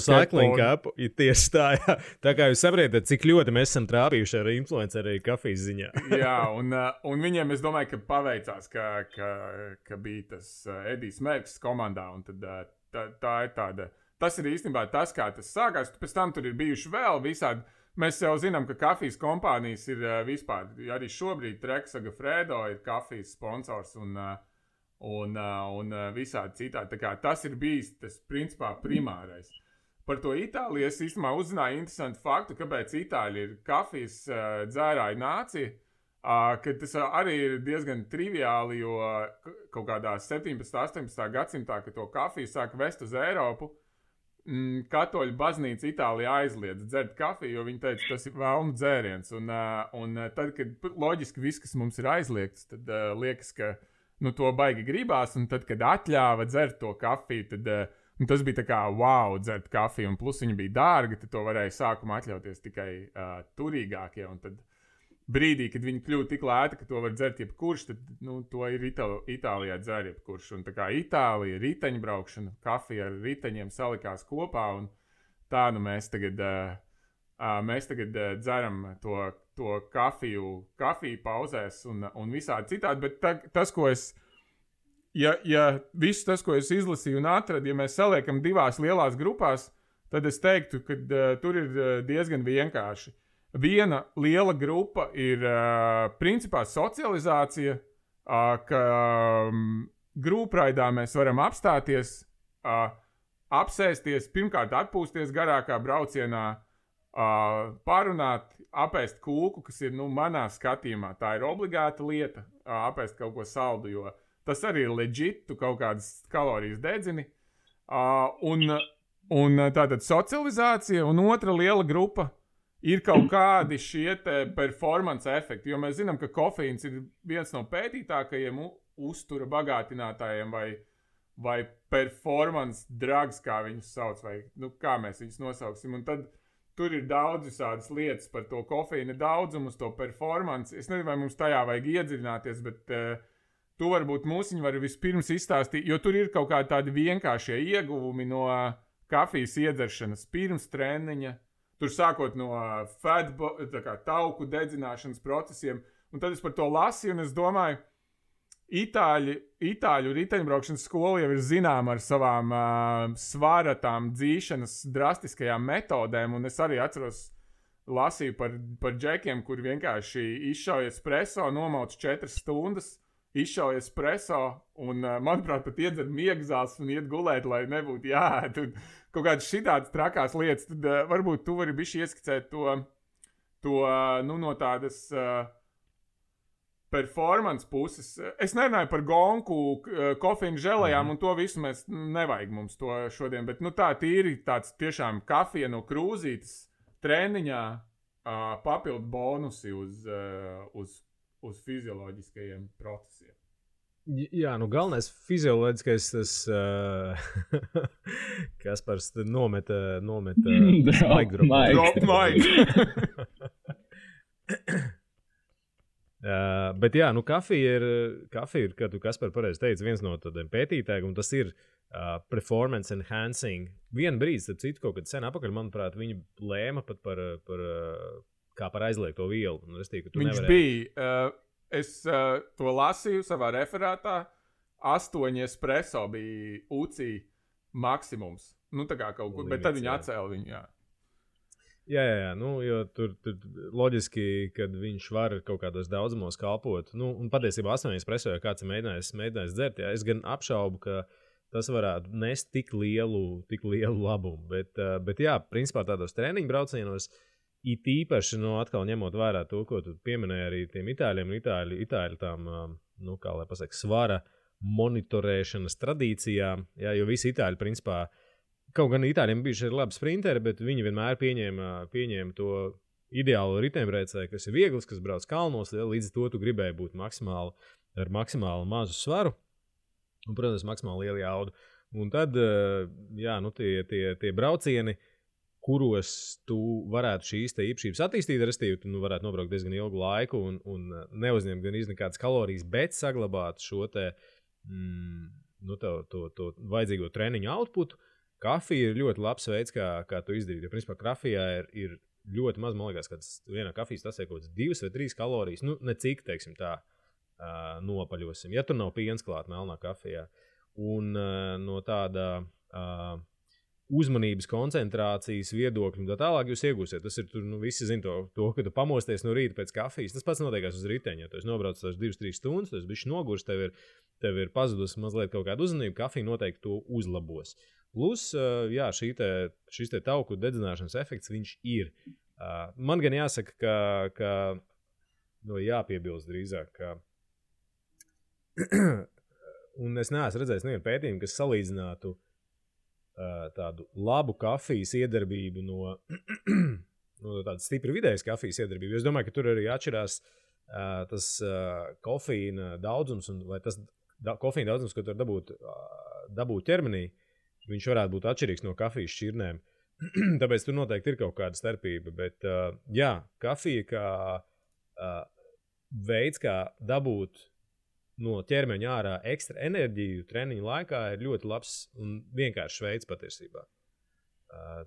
cycling cup, tieši tā, jā. Tā kā jūs saprotat, cik ļoti mēs esam trāpījuši ar influenceri kafijas ziņā. Jā, un viņiem, es domāju, ka paveicās, ka bija tas Edijs Mērķis komandā, un tad tā ir tāda, tas ir īstenībā tas, kā tas sākās, pēc tam tur ir bijuši vēl visādi. Mēs jau zinām, ka kafijas kompānijas ir vispār, arī šobrīd Treksaga Fredo ir kafijas sponsors un visādi citādi. Tā kā tas ir bijis tas principā primārais. Par to Itāliju es īstenībā uzzināju interesantu faktu, kāpēc Itāļi ir kafijas dzērāju nācija, ka tas arī ir diezgan triviāli, jo kaut kādā 17. 18. gadsimtā, kad to kafiju sāka vest uz Eiropu, Katoļu baznīca Itālijā aizliedz dzert kafiju, jo viņi teica, tas ir vēlnu dzēriens. Un tad, kad loģiski viss, kas mums ir aizliegts, tad liekas, ka to baigi gribās. Un tad, kad atļāva dzert to kafiju, tad tas bija tā kā wow, dzert kafiju. Un plus viņa bija dārga, tad to varēja sākumā atļauties tikai turīgākie. Un tad brīdī, kad viņi kļuva tik lēti, ka to var dzert jebkurš, tad to ir Itālijā dzer jebkurš. Un tā kā Itālija, riteņbraukšana, kafija ar riteņiem salikās kopā, un tā mēs tagad dzeram to kafiju pauzēs un visādi citādi. Bet tas, ko es, ja viss tas, ko es izlasīju un atradu, ja mēs saliekam divās lielās grupās, tad es teiktu, ka tur ir diezgan vienkārši. Viena liela grupa ir principā socializācija, ka grupreidā mēs varam apstāties, apsēsties, pirmkārt atpūsties garākā braucienā, parunāt, apēst kūku, kas ir manā skatījumā. Tā ir obligāta lieta, apēst kaut ko saldu, jo tas arī ir legit, tu kaut kādas kalorijas dedzini. Un tātad socializācija, un otra liela grupa ir kaut kādi šie performance efekti, jo mēs zinām, ka kofeīns ir viens no pētītākajiem uztura bagātinātājiem vai performance drugs, kā viņus sauc, vai kā mēs viņus nosauksim. Un tad tur ir daudz visādas lietas par to kofeīna daudzumu, uz to performance. Es nezinu, vai mums tajā vajag iedziļināties, bet tu varbūt mūsiņi vari vispirms izstāstīt, jo tur ir kaut kādi tādi vienkāršie ieguvumi no kafijas iedzeršanas pirms treniņa, tur sākot no tauku dedzināšanas procesiem, un tad es par to lasīju, un es domāju, Itāļu riteņbraukšanas skola jau ir zināma ar savām svara tām dzīšanas drastiskajām metodēm, un es arī atceros, lasīju par džekiem, kur vienkārši izšauja espresso, nomauc 4 stundas, izšauja espresso, un, manuprāt, pat iedzer miegzās un iet gulēt, lai nebūtu jāēd. Un kaut kādas šitādas trakās lietas, tad varbūt tu vari bišķi ieskicēt to no tādas performance puses. Es nerunāju par gonku, kofīnu želejām, un to visu mēs nevajag mums to šodien, bet tā tīri tāds tiešām kafija no krūzītes treniņā papildu bonusi uz fizioloģiskajiem procesiem. Jā, galvenais fizioloģiskais tas, Kaspars nometa Drop mic. Bet jā, kafija ir, kā tu Kaspar pareizi teici, viens no tādiem pētītājiem, un tas ir performance enhancing. Vienu brīdi, starp citu, kaut kad sen apakaļ, manuprāt, viņi lēma pat par aizliegto vielu. Viņš bija, es to lasīju savā referātā, 8 espresso bija UCI maksimums. Tā kā kaut kur, bet tad viņi atcēla viņu, jā. Jā, jo tur loģiski, kad viņš var kaut kādos daudzumos kalpot. Un patiesībā 8 espresso, ja kāds ir mēģinājis dzert, jā, es gan apšaubu, ka tas varētu nest tik lielu labumu. Bet jā, principā tādos treniņu braucienos, it īpaši, atkal ņemot vērā to, ko tu pieminēji arī tiem itāļiem, itāļu tām, kā lai pasaka, svara monitorēšanas tradīcijām, jā, jo visi itāļi, principā, kaut gan itāļiem bijuši ir labi sprinteri, bet viņi vienmēr pieņēma to ideālo riteņbraucēju, kas ir viegls, kas brauc kalnos, līdz to tu gribēji būt ar maksimāli mazu svaru un, protams, maksimāli lielu jaudu. Un tad, jā, tie braucieni, kuros tu varētu šīs te īpašības attīstīt, restīvi, tu varētu nobraukt diezgan ilgu laiku un neuzņemt gan nekādas kalorijas, bet saglabāt šo te, to vajadzīgo treniņu outputu. Kafija ir ļoti labs veids, kā to izdarīt. Jo, principā, kafijā ir ļoti maz, man liekas, ka vienā kafijas tasē kaut kāds 2 vai 3 kalorijas. Ne cik, teiksim tā, nopaļosim. Ja tur nav piens klāt melnā kafijā. Un no tāda uzmanības koncentrācijas viedokļa un tā tālāk jūs iegūsiet. Tas ir, visi zin to, ka tu pamosties no rīta pēc kafijas. Tas pats notiekās uz riteņa. Ja tu esi nobraucis tās 2-3 stundas, tu esi bišķi nogurs, tev ir pazudus mazliet kaut kāda uzmanība, kafija noteikti to uzlabos. Plus, jā, šis te tauku dedzināšanas efekts, viņš ir. Man gan jāsaka, ka jāpiebilst drīzāk, ka un es neesmu redzējis nevienu pētījumu, kas salīdzinātu tādu labu kafijas iedarbību no tādas stipri vidējas kafijas iedarbību. Es domāju, ka tur arī atšķirās tas kofīna daudzums, vai tas kofīna daudzums, ko tur dabūt ķermenī, viņš varētu būt atšķirīgs no kafijas šķirnēm. Tāpēc tur noteikti ir kaut kāda starpība. Bet, jā, kafija kā veids, kā dabūt no ķermeņa ārā ekstra enerģiju treniņu laikā, ir ļoti labs un vienkāršs veids patiesībā.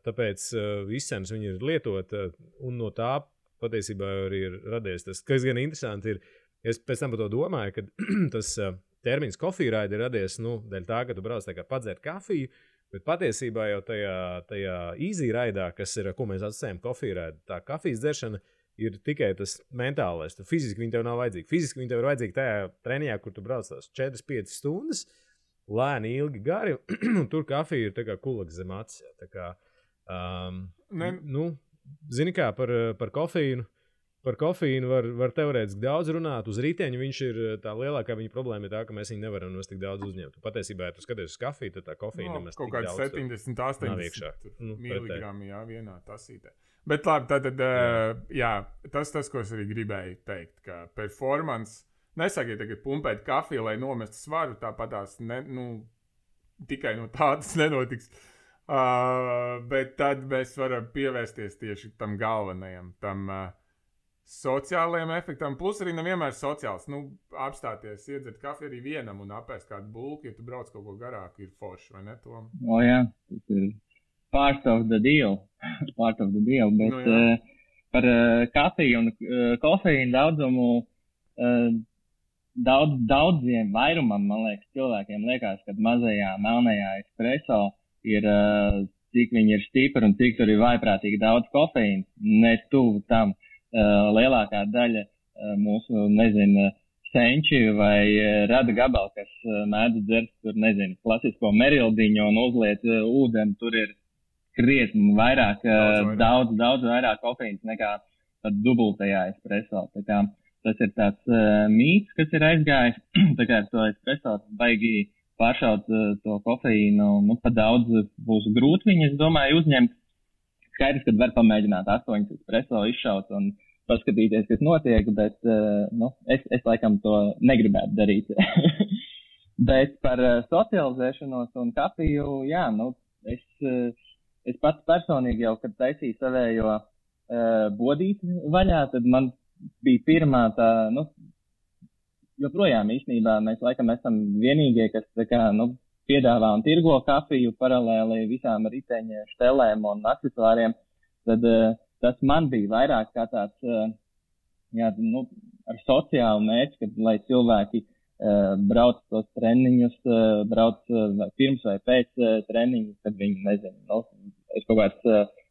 Tāpēc izcenas viņi ir lietot, un no tā patiesībā arī ir radies tas, kas gan interesanti ir. Es pēc tam par to domāju, ka tas termins kofīraidi ir radies, dēļ tā, ka tu brauc tā kā padzert kafiju, bet patiesībā jau tajā easy raidā, kas ir, ko mēs atsacējam kofīraidi, tā kafijas dzeršana ir tikai tas mentālais. Tu fiziski viņi tev nav vajadzīgi. Fiziski viņi tev ir vajadzīgi tajā treniņā, kur tu brauc tās 4-5 stundas, lēni, ilgi, gari, un tur kafija ir tā kā kulaks zem acis. Tā kā, zini kā, par kofīnu. Par kofīnu var teorētiski daudz runāt. Uz riteņa viņš ir tā lielākā viņa problēma ir tā, ka mēs viņu nevaram nos tik daudz uzņemt. Patiesībā, ja tu skaties uz kafiju, tad tā kofīna nemaz tik daudz. Kaut kāds 70-80 miligrami, jā, vienā tasītē. Bet labi, tad, jā, tas, ko es arī gribēju teikt, ka performance, nesakiet tagad pumpēt kafiju, lai nomestu svaru, tāpatās, tikai no tādas nenotiks. Bet tad mēs varam pievērsties tieši tam galvenajam, tam sociālajiem efektam, plus arī nevienmēr sociāls. Apstāties, iedzert kafiju arī vienam un apēst kādu bulku, ja tu brauc kaut ko garāku, ir forši, vai ne, Tom? Jā, tas ir part of the deal, bet par kafiju un kofeīnu daudzumu, daudziem vairumam, man liekas, cilvēkiem liekas, ka mazajā melnajā espresso ir, cik viņi ir stipri un cik tur ir vaiprātīgi daudz kofeīna, ne tuvu tam. Lielākā daļa mūsu, senči vai rada gabali, kas mēdz dzert tur, klasisko merildiņu un uzliet ūdeni, tur ir krietni vairāk, daudz vairāk kofeīns nekā pat dubultajā espresso. Tā kā tas ir tāds mīts, kas ir aizgājis, tā kā ar to espresso baigi pāršaut to kofeīnu, pa daudz būs grūti viņi, es domāju, uzņemt. Skaidrs, kad var pamēģināt 8 espresso izšaut un paskatīties, kas notiek, bet es laikam to negribētu darīt. Bet par socializēšanos un kafiju, es pats personīgi jau, kad taisīju savējo bodīti vaļā, tad man bija pirmā tā, joprojām īstenībā mēs laikam esam vienīgie, kas tā kā, piedāvā un tirgo kafiju paralēli visām riteņa štelēm un aksesuāriem, tad tas man bija vairāk kā tāds, ar sociālu mērķi, kad, lai cilvēki brauc tos treniņus, brauc vai pirms vai pēc treniņu, kad viņi, ir kaut kāds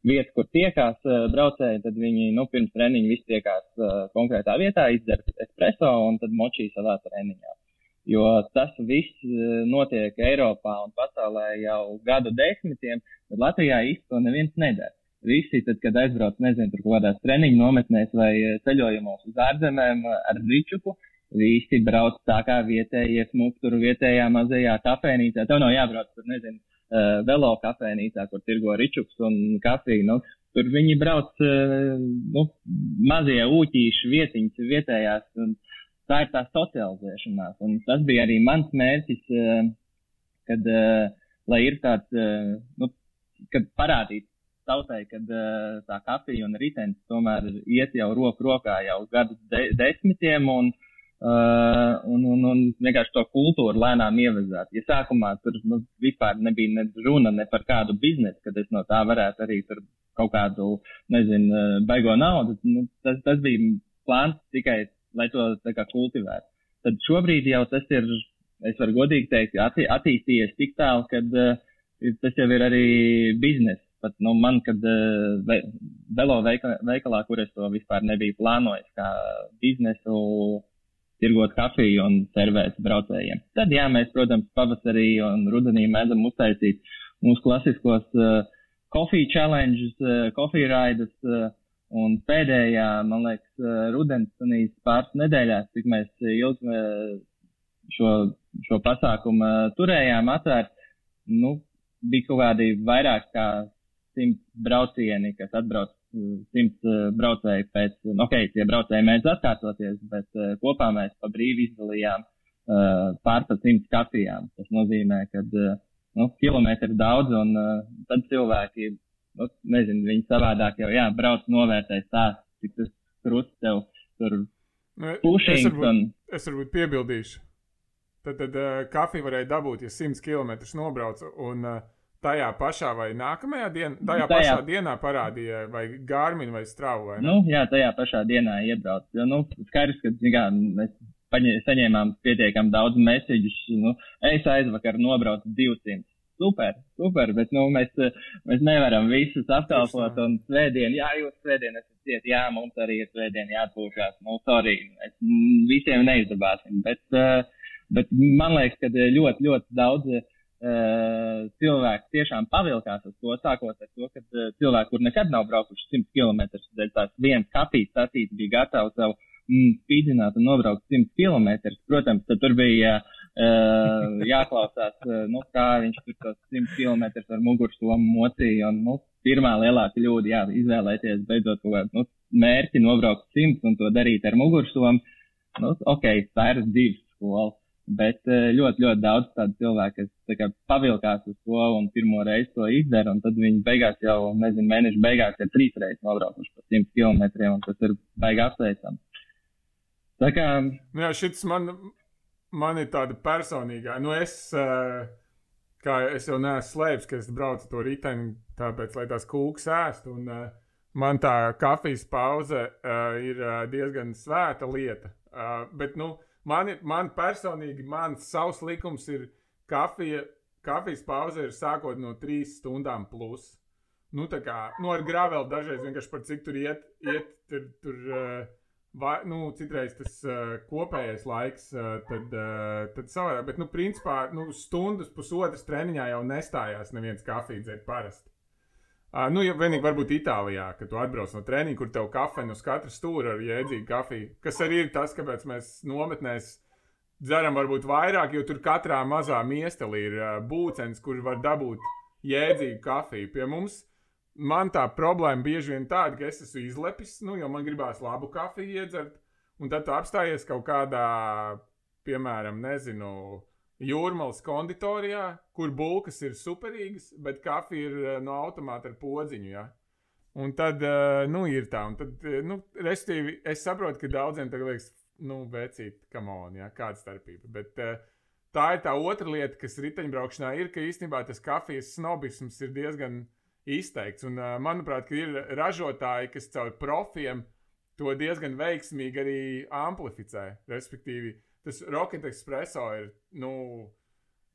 vietas, kur tiekās braucēji, tad viņi, pirms treniņu visi tiekās konkrētā vietā, izdzer espresso un tad močī savā treniņā. Jo tas viss notiek Eiropā un pasaulē jau gadu desmitiem, bet Latvijā īsti to neviens nedara. Visi, tad, kad aizbrauc, tur kaut kādās treniņu nometnēs vai ceļojumos uz ārzemēm ar ričuku, visi brauc tā kā vietējie smuk tur vietējā mazajā kafēnīcā. Tev nav jābrauc tur, velo kafēnīcā, kur tirgo ričuks un kafiju. Tur viņi brauc, mazie ūķīši vietiņas vietējās un tā ir tā socializēšanās, un tas bija arī mans mērķis, kad, lai ir tāds, kad parādīt tautai, kad tā kafija un ritenis tomēr iet jau roku rokā jau gadu desmitiem, un vienkārši to kultūru lēnām ievezāt. Ja sākumā tur vispār nebija ne runa ne par kādu biznesu, kad es no tā varētu arī tur kaut kādu, baigo naudu, tas bija plāns tikai lai to tā kā kultivētu. Tad šobrīd jau tas ir, es varu godīgi teikt, attīstījies tik tālu, kad tas jau ir arī biznes. Pat man, kad velo veikalā, kur es to vispār nebiju plānojis, kā biznesu, tirgot kafiju un servēt braucējiem. Tad, mēs, protams, pavasarī un rudenī mēdzam uztaisīt mūsu klasiskos coffee challenges, coffee raidus, un pēdējā, man liekas, rudens pāris nedēļās, cik mēs ilgi šo pasākumu turējām atvērt, bija kaut kādi vairāk kā 100 braucieni, kas atbrauc 100 braucēji pēc, tie braucēji mēdz atkārtoties, bet kopā mēs pa brīvi izdalījām pār 100 kafijām. Tas nozīmē, ka kilometri daudz, un tad cilvēki viņi savādāk jau, brauc novērtēt stāst, cik tas krusts tev tur pušings. Es varbūt piebildīšu. Tad kafiju varēja dabūt, ja 100 kilometrus nobrauc, un tajā pašā vai nākamajā pašā dienā parādīja vai Garmin vai Strava, vai ne? Tajā pašā dienā iebrauc. Jo, skaidrs, ka, mēs saņēmām pietiekam daudz mesiģus, es aizvakar nobraucu 200. Super, bet mēs nevaram visus apkalpot un svētdien, jūs svētdien esat ciet, mums arī ir svētdien jāatpūšās, sorry, visiem neizdabāsim, bet man liekas, ka ļoti, ļoti daudz cilvēki tiešām pavilkās uz to, sākot ar to, ka cilvēki, kur nekad nav braukuši 100 kilometrus, tās viens kafijas sacīts bija gatavs savu spīdzināt un nobraukt 100 kilometrus. Protams, tad tur bija jāklausās, kā viņš tur tos 100 kilometrus ar mugursomu mocīja. Un, pirmā lielā kļūda, izvēlēties beidzot kaut kādu mērķi nobraukt 100 un to darīt ar mugursomu. Tā ir dzīves skola. Bet ļoti, ļoti daudz tādu cilvēku, kas pavilkās uz to un pirmo reizi to izdara, un tad viņi beigās jau, mēnešu beigās ir 3 reizes nobraukuši pa 100 kilometriem, un tas ir baigi apsveicami. Tā kā... Jā, šits man ir tāda personīgā. Kā es jau neesmu slēpis, ka es braucu to riteni, tāpēc, lai tās kūkas ēst. Un man tā kafijas pauze ir diezgan svēta lieta. Bet, man personīgi, savs likums ir kafijas pauze ir sākot no 3 stundām plus. Tā kā, ar graveli dažreiz vienkārši par cik tur iet citreiz tas kopējais laiks, tad savādāk. Bet, principā, stundas, pusotras treniņā jau nestājās neviens kafiju dzert parasti. Ja vienīgi varbūt Itālijā, kad tu atbrauc no treniņa, kur tev kafejna uz katra stūra ar jēdzīgu kafiju, kas arī ir tas, kāpēc mēs nometnēs dzeram varbūt vairāk, jo tur katrā mazā miestelī ir būcens, kur var dabūt jēdzīgu kafiju. Pie mums man tā problēma bieži vien tāda, ka es esmu izlepis, jo man gribās labu kafiju iedzert, un tad tu apstājies kaut kādā, piemēram, Jūrmalas konditorijā, kur bulkas ir superīgas, bet kafija ir no automāta ar podziņu, ja? Un tad, ir tā, un tad, restīvi, es saprotu, ka daudziem tagad liekas, vecīt, come on, ja, kāda starpība, bet tā ir tā otra lieta, kas riteņbraukšanā ir, ka īstenībā tas kafijas snobisms ir diezgan izteikts. Un, manuprāt, ka ir ražotāji, kas caur profiem to diezgan veiksmīgi arī amplificē. Respektīvi, tas Rocket Espresso ir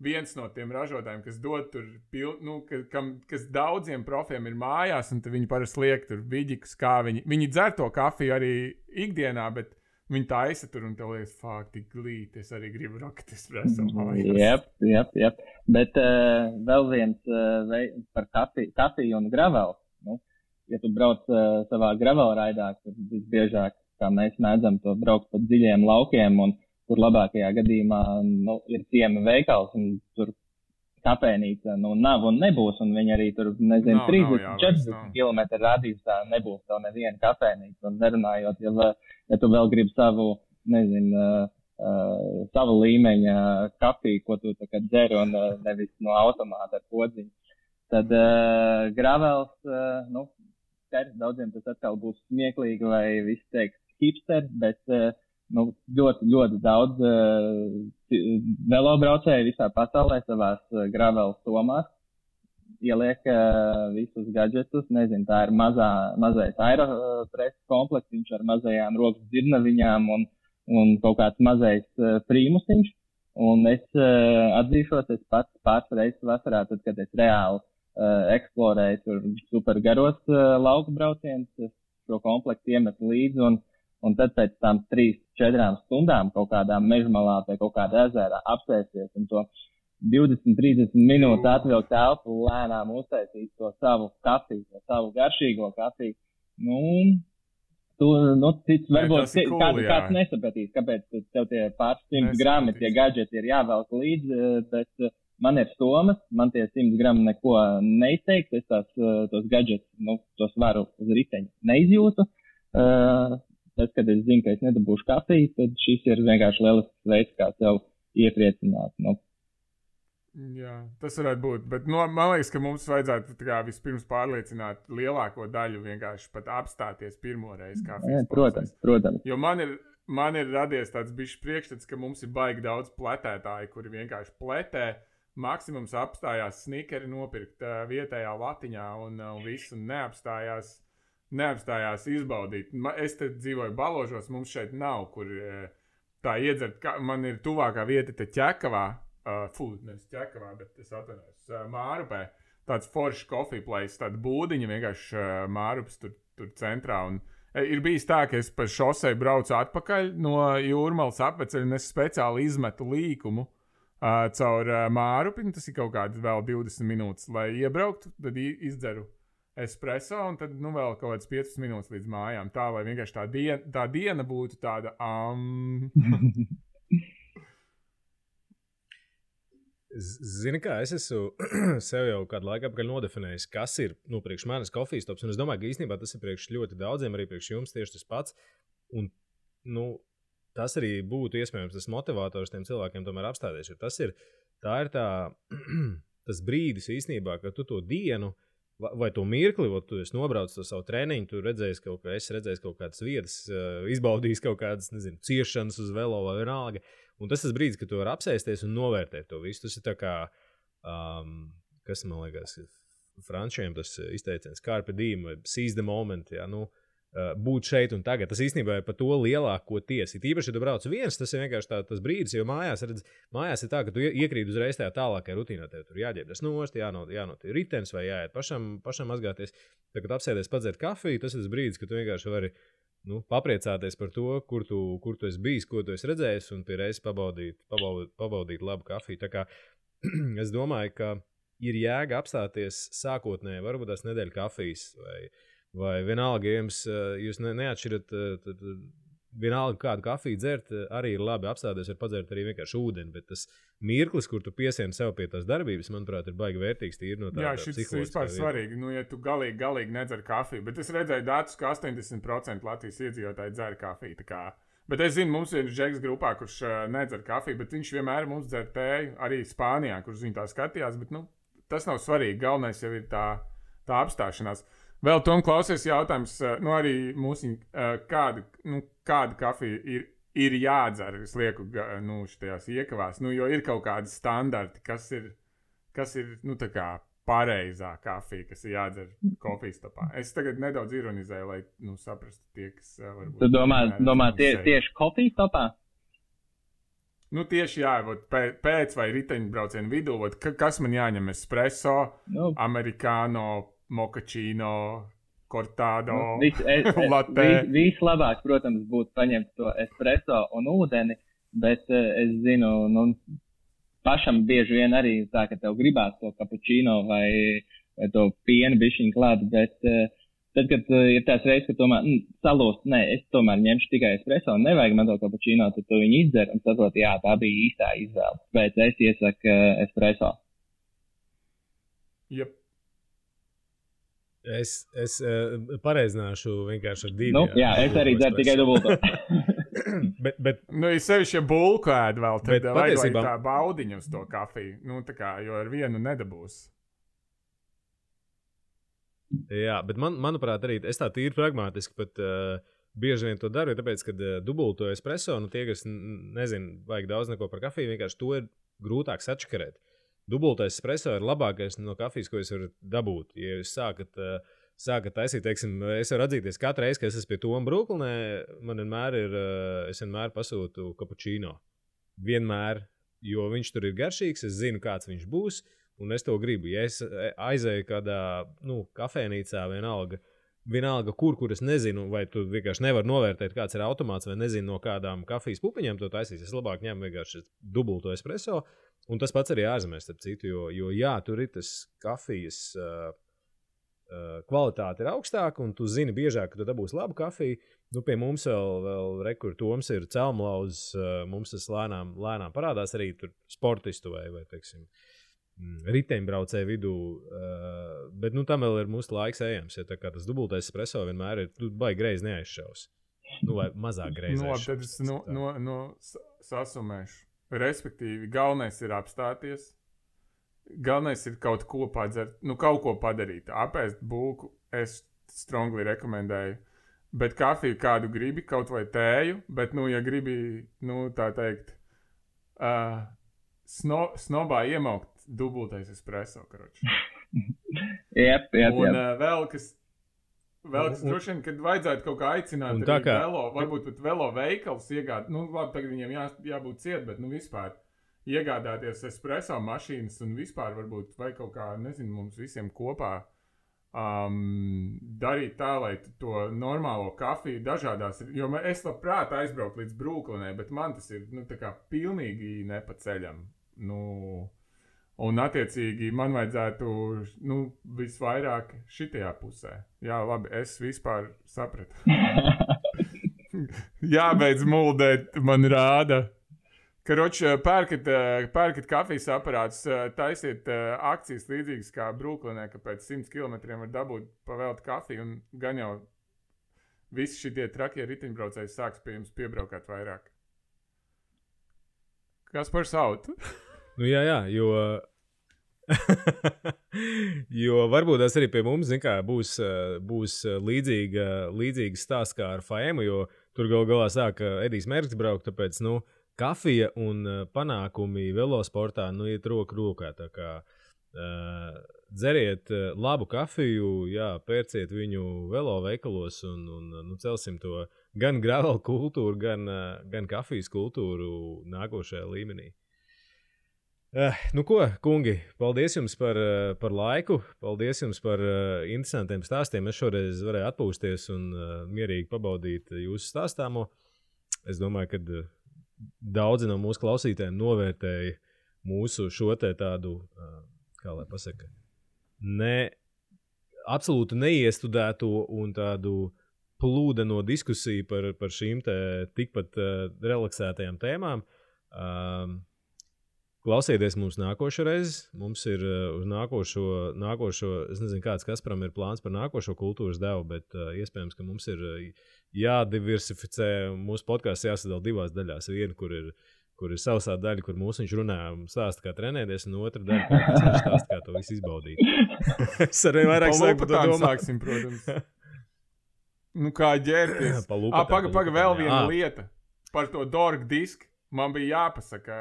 viens no tiem ražotājiem, kas dod tur, kas daudziem profiem ir mājās, un viņi parasti liek tur viģikus, kā viņi dzer to kafiju arī ikdienā, bet viņi taisa tur un tev liekas, tik glīti, es arī gribu Rocket Espresso mājās. Jep. Bet vēl viens par kafiju un gravelu. Ja tu brauc savā gravelraidā, tad visbiežāk, kā mēs mēdzam to braukt pa dziļiem laukiem, un kur labākajā gadījumā ir ciema veikals, un tur kapēnīca nav un nebūs, un viņi arī tur, 30-40 kilometru radiusā nebūs tev neviena kapēnīca, un nerunājot, ja tu vēl gribi savu, savu līmeņa kafiju, ko tu tā kā dzer, un nevis no automāta ar podziņu, tad gravels, daudziem tas atkal būs smieklīgi, vai visi teiks hipster, bet ļoti, ļoti daudz velobraucēju visā pasaulē savās gravel somās ieliek visus gadžetus, tā ir mazais aeropress komplekts, viņš ar mazajām rokas dzirnaviņām un kaut kāds mazais prīmusiņš, un es atzīšos, es pats pāris reizes vasarā, tad, kad es reāli eksplorēju tur super garos lauku braucienus, šo komplektu iemetu līdzi, un tad pēc tam 3-4 stundām kaut kādā mežmalā pie kaut kāda ezera apsēsties un to 20-30 minūtes atvilkt telpu, lēnām uztaisīt to savu kafiju, to savu garšīgo kafiju. Cits varbūt kāds nesapratīs, kāpēc tev tie pāris 100 grami, tie gadžeti ir jāvelk līdzi, bet man ir somas, man tie 100 grami neko neizteiks, es tos gadžetus, tos varu uz riteņa neizjūtu. Tas, kad es zinu, ka es nedabūšu kafiju, tad šis ir vienkārši lielisks veids, kā sev iepriecināt. Jā, tas varētu būt, bet man liekas, ka mums vajadzētu vispirms pārliecināt lielāko daļu vienkārši pat apstāties pirmo reizi kafijas pauzēs. Protams. Jo man ir radies tāds bišķi priekšstats, ka mums ir baigi daudz pletētāji, kuri vienkārši pletē, maksimums apstājās snikeri nopirkt vietējā latiņā un visu neapstājās izbaudīt. Es te dzīvoju Baložos, mums šeit nav, kur tā iedzert. Man ir tuvākā vieta te Ķekavā, nevis Ķekavā, bet es atvainojos, Mārupē. Tāds foršs coffee place, tāda būdiņa vienkārši Mārupas tur centrā. Un ir bijis tā, ka es pa šosei braucu atpakaļ no Jūrmalas apveceļa un es speciāli izmetu līkumu caur Mārupi. Tas ir kaut kāds vēl 20 minūtes, lai iebrauktu, tad izdzeru espresso, un tad vēl kaut kāds 5 minūtes līdz mājām. Tā, lai vienkārši tā diena būtu tāda Zini kā, es esmu sev jau kādu laiku apakaļ nodefinējis, kas ir, priekš manis kofijas tops, un es domāju, ka īstenībā tas ir priekš ļoti daudziem, arī priekš jums tieši tas pats, un, tas arī būtu iespējams tas motivators tiem cilvēkiem tomēr apstāties, jo tas ir tas brīdis īstenībā, ka tu to dienu vai to mirkli, tu esi nobraucis to savu treniņu, tu redzējis kaut kādas vietas, izbaudījis kaut kādas, nezinu, ciešanas uz velo vai vienalga. Un tas brīdis, kad tu vari apsēsties un novērtēt to visu. Tas ir tā kā, kas man liekas, frančiem tas izteiciens, carpe diem, vai seize the moment, jā, būt šeit un tagad. Tas īstenībā ir par to lielāk, ko tiesi. Īpaši, ja tu brauc viens, tas ir vienkārši tas brīdis, jo mājās ir tā, ka tu iekrīt uzreiz tajā tālākajā rutīnā. Tev tur jāģērbjas nost, jānot ritenis vai jāiet pašam mazgāties. Tad, kad apsēdies padzert kafiju, tas ir tas brīdis, kad tu vienkārši vari papriecāties par to, kur tu esi bijis, ko tu esi redzējis, un pie reizes pabaudīt labu kafiju. Tā kā es domāju, ka ir jēga apstāties sākotnēji, varbūt tās nedēļa kafijas vai vienalga, ja jūs neatšķirat, tad vienalga kādu kafiju dzert, arī ir labi apstāties, var padzert arī vienkārši ūdeni, bet tas mirklis, kur tu piesieni sev pie tās darbības, manuprāt, ir baigi vērtīgs tīri no tā. Jā, šis vispār svarīgi, ja tu galīgi nedzer kafiju, bet es redzēju datus, ka 80% Latvijas iedzīvotāji dzer kafiju, tā kā. Bet es zinu, mums ir Džeks grupā, kurš nedzer kafiju, bet viņš vienmēr mums dzer tēju, arī Spānijā, kurš viņa tā skatījās, bet, tas nav svarīgi, galvenais jau ir tā apstāšanās. Vēl Tom klausies jautājums, arī mūsu, kāda kafija ir jādzer, es lieku, šitajās iekavās, jo ir kaut kādi standarti, kas ir, tā kā pareizā kafija, kas ir jādzer kofijas topā. Es tagad nedaudz ironizēju, lai, saprastu tie, kas varbūt... Tu domā tieši kofijas topā? Tieši jā, pēc vai riteņbraucienu vidū, kas man jāņem espresso, americano, mochačino, cortado, latte. Vislabāk, protams, būtu paņemt to espresso un ūdeni, bet es zinu, pašam bieži vien arī tā, ka tev gribās to cappuccino vai to pienu bišķiņu klāt, bet tad, kad ir tās reizes, ka tomēr salūst, es tomēr ņemšu tikai espresso un nevajag man to cappuccino, tad tu viņu izdzer un saprot, jā, tā bija īstā izvēle. Bet es iesaku espresso. Yep. Es pareizināšu vienkārši ar 2. Jā, es arī dzeru tikai dubulto. bet es sevišķi bulku ēdu vēl, tad vajag tā baudiņu uz to kafiju, tā kā, jo ar vienu nedabūs. Jā, bet manuprāt arī, es tā tīri pragmātiski pat bieži vien to daru, tāpēc, kad dubulto espresso, tie, kas nezinu, vajag daudz neko par kafiju, vienkārši to ir grūtāk sačakarēt. Dubultais espresso ir labākais no kafijas, ko jūs varat dabūt. Ja jūs sākat taisīt, teiksim, es varu atzīties katru reizi, kad es esmu pie Toma Brooklynē, man es vienmēr pasūtu cappuccino. Vienmēr, jo viņš tur ir garšīgs, es zinu, kāds viņš būs, un es to gribu. Ja es aizēju kādā, kafēnīcā vienalga kur es nezinu, vai tu vienkārši nevar novērtēt, kāds ir automāts, vai nezinu, no kādām kafijas pupiņām to taisīs, es labāk ņemu vienkārši dubulto espresso. Un tas pats arī ārzemēs, starp citu, jo jā, tur ir tas kafijas kvalitāte ir augstāka, un tu zini biežāk, ka tu dabūsi labu kafiju. Pie mums vēl rekur Toms ir celmlauzs, mums tas lēnām parādās arī tur sportistu vai teiksim, riteņbraucēju vidū, bet tam vēl ir mūsu laiks ejams, ja tā kā tas dubultais espresso vienmēr ir, tu baigi greizi neaizšaus. Vai mazāk greizi aizšaus. Tad es sasumēšu. Respektīvi, galvenais ir apstāties, galvenais ir kaut ko padzert, kaut ko padarīt. Apēst bulku es strongly rekomendēju, bet kafiju kādu gribi, kaut vai tēju, bet, ja gribi, tā teikt, snobā iemaukt dubultais espresso, karoči. Jep. Un vēl kas droši vien, kad vajadzētu kaut kā aicināt arī velo, varbūt pat velo veikals iegādāt, labi, tagad viņiem jābūt ciet, bet, vispār iegādāties espresso mašīnas un vispār varbūt, vai kaut kā, nezinu, mums visiem kopā darīt tā, lai to normālo kafiju dažādās, jo es labprāt aizbraukt līdz Brooklynai, bet man tas ir, tā kā pilnīgi nepaceļam, un, attiecīgi, man vajadzētu, visvairāk šitajā pusē. Jā, labi, es vispār sapratu. Jābeidz muldēt, man rāda. Karoči, pērkat kafijas aparātus, taisiet akcijas līdzīgas kā Brooklynē, ka pēc 100 kilometriem var dabūt pavēltu kafiju, un gan jau visi šitie trakie riteņbraucēji sāks pie jums piebraukāt vairāk. Kas par sautu? Jā, jo Jo varbūt tas arī pie mums, zin kā, būs līdzīgs stāsts kā ar FAEMu, jo tur galā sāk Edijs Mērķis braukt, tāpēc, kafija un panākumi velosportā, iet roku rokā, tā kā dzeriet labu kafiju, pērciet viņu velo veikalos un celsim to gan gravel kultūru, gan kafijas kultūru nākošajā līmenī. Ko, kungi, paldies jums par laiku, paldies jums par interesantiem stāstiem. Es šoreiz varēju atpūsties un mierīgi pabaudīt jūsu stāstāmo. Es domāju, ka daudzi no mūsu klausītājiem novērtēja mūsu šo te tādu, kā lai pasaka, absolūti neiestudēto un tādu plūdeno diskusiju par šīm te tikpat relaksētajām tēmām. Klausieties mums nākošais. Mums ir uz nākošo, es nezinu, kāds Kasparam ir plāns par nākošo kultūras devu, bet iespējams, ka mums ir jādiversificē. Mūsu podcasts jāsadala divās daļās. Viena, kur ir sausā daļa, kur viņš runā un stāsta, kā trenēties, un otra daļa, kur viņš stāsta, kā to visu izbaudīt. Es arvien vairāk sāku par to domāt. Sāksim, protams. Kā ģērties. Paga, vēl viena lieta. Par to dorgu disku man bija jāpasaka,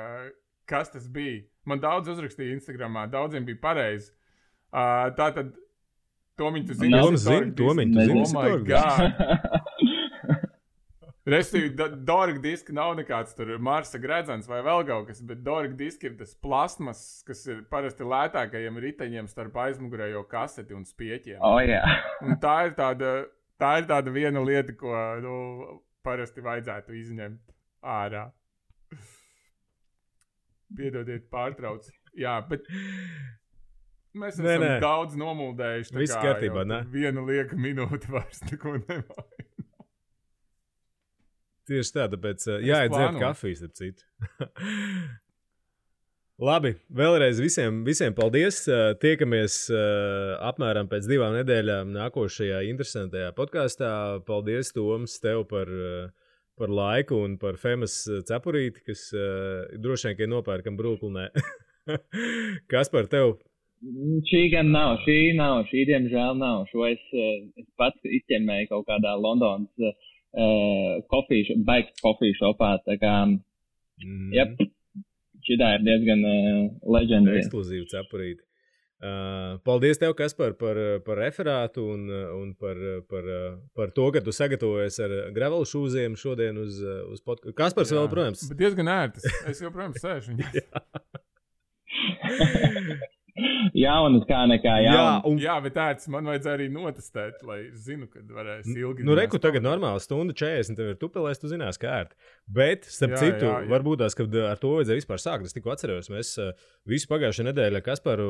kas tas bija. Man daudz uzrakstīja Instagramā, daudziem bija pareizi. Tātad, Tomiņ, tu zini? Tomiņ, tu zini? Oh my God! Restīvi, dorga diska nav nekāds tur Marsa gredzens vai vēl kaut kas, bet dorga diska ir tas plasmas, kas ir parasti lētākajiem riteņiem starp aizmugurējo kaseti un spieķiem. Un tā ir tāda viena lieta, ko parasti vajadzētu izņemt ārā. Piedodiet, pārtrauc. Jā, bet mēs esam daudz nomuldējuši. Viss kārtībā, ne? Viena lieka minūte vairs neko nevajag. Tieši tā, tāpēc jāiedzert kafijas, ap citu. Labi, vēlreiz visiem paldies. Tiekamies apmēram pēc 2 nedēļām nākošajā interesantajā podkāstā. Paldies, Toms, tev par laiku un par Femas cepurīti, kas droši vien, ka nopērkam Brooklynē. Kas par tev? Šī gan nav, šī diemžēl nav. Šo es pats izķemmēju kaut kādā Londonas coffee shopā, tā kā, šitā ir diezgan legendary. Ekskluzīva cepurīti. Paldies tev, Kaspar, par referātu un par to, ka tu sagatavojies ar gravel šūziem šodien uz podcastu. Kaspars vēl, protams. Bet diezgan ērtis. Es joprojām sēžu. Jaunas kā nekā jaunas. Jā, bet tāds man vajadzēja arī notestēt, lai zinu, kad varēs ilgi. Reku tagad normāli stunda 40, tev ir tupelēs, tu zinās, kā ērti. Bet, starp citu, varbūt tās, kad ar to vajadzēja vispār sākt, es tikko atceros, mēs visu pagājušajā nedēļā Kasparu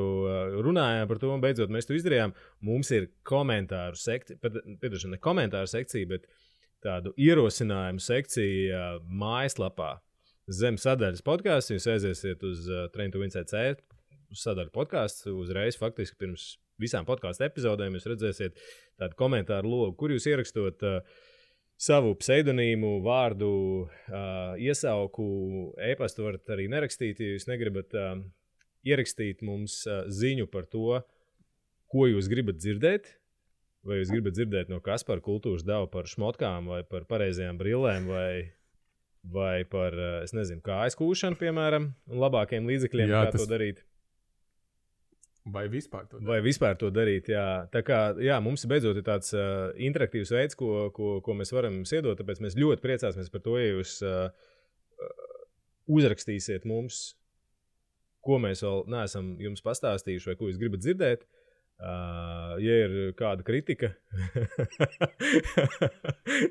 runājām par to, un beidzot mēs to izdarījām. Mums ir komentāru sekcija, ne komentāru sekcija, bet tādu ierosinājumu sekcija mājaslapā. Zem sadaļas podcasts, jūs aiziesiet uz Train to Win CC, uz sadaļu podkāstu, uzreiz faktiski pirms visām podkāstu epizodēm jūs redzēsiet tādu komentāru logu, kur jūs ierakstot savu pseidonīmu, vārdu, iesauku, e-pastu varat arī nerakstīt, ja jūs negribat ierakstīt mums ziņu par to, ko jūs gribat dzirdēt, vai jūs gribat dzirdēt no Kaspara kultūras devu par šmotkām, vai par pareizajām brillēm, vai par, es nezinu, kājas kūšanu, piemēram, un labākiem līdzekļiem, kā to darīt. Vai vispār to darīt, jā. Tā kā, jā, mums beidzot ir tāds interaktīvs veids, ko mēs varam jums iedot, tāpēc mēs ļoti priecāsimies par to, ja jūs uzrakstīsiet mums, ko mēs vēl neesam jums pastāstījuši vai ko jūs gribat dzirdēt. Ja ir kāda kritika,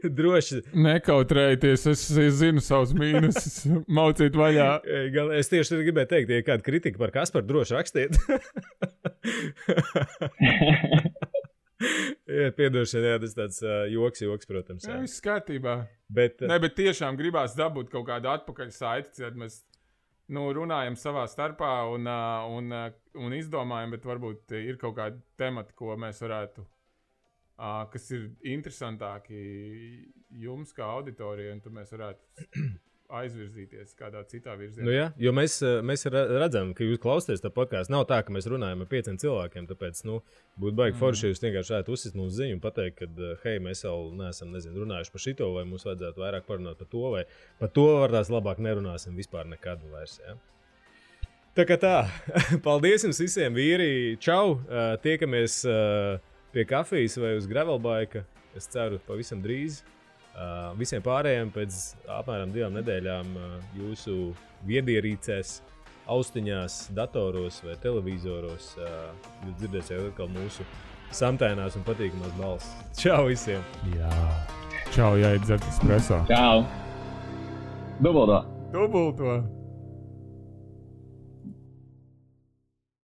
droši. Nekautrējieties, es zinu savus mīnusus, maucīt vaļā. Es tieši gribēju teikt, ja ir kāda kritika par Kasparu, droši rakstiet. Piedošana, jā, tas tāds joks, protams. Jā, viss kārtībā. Bet tiešām gribās dabūt kaut kādu atpakaļ saiti, kad mēs runājam savā starpā un izdomājam, bet varbūt ir kaut kādi temati, ko mēs varētu, kas ir interesantāki jums kā auditorijai, un tad mēs varētu aizvirzīties kādā citā virzienā. Nu, jā, jo mēs redzam, ka jūs klausāties tā podkāstu. Nav tā, ka mēs runājam ar 5 cilvēkiem, tāpēc būtu baigi forši, ja jūs vienkārši varētu uzsist mums ziņu un pateikt, ka, hei, mēs vēl neesam runājuši par šito, vai mums vajadzētu vairāk parunāt par to, vai par to varbūt labāk nerunāsim vispār nekad vairs. Ja? Tā kā tā, paldies jums visiem, vīri, čau, tiekamies pie kafijas vai uz gravelbaika, es ceru pavisam drīz. Visiem pārējiem pēc apmēram 2 nedēļām jūsu viedierīcēs, austiņās, datoros vai televizoros jūs dzirdēsiet atkal mūsu samtainās un patīkamās balss. Čau visiem! Jā. Čau, jāiet dzert espresso. Čau! Dubulto!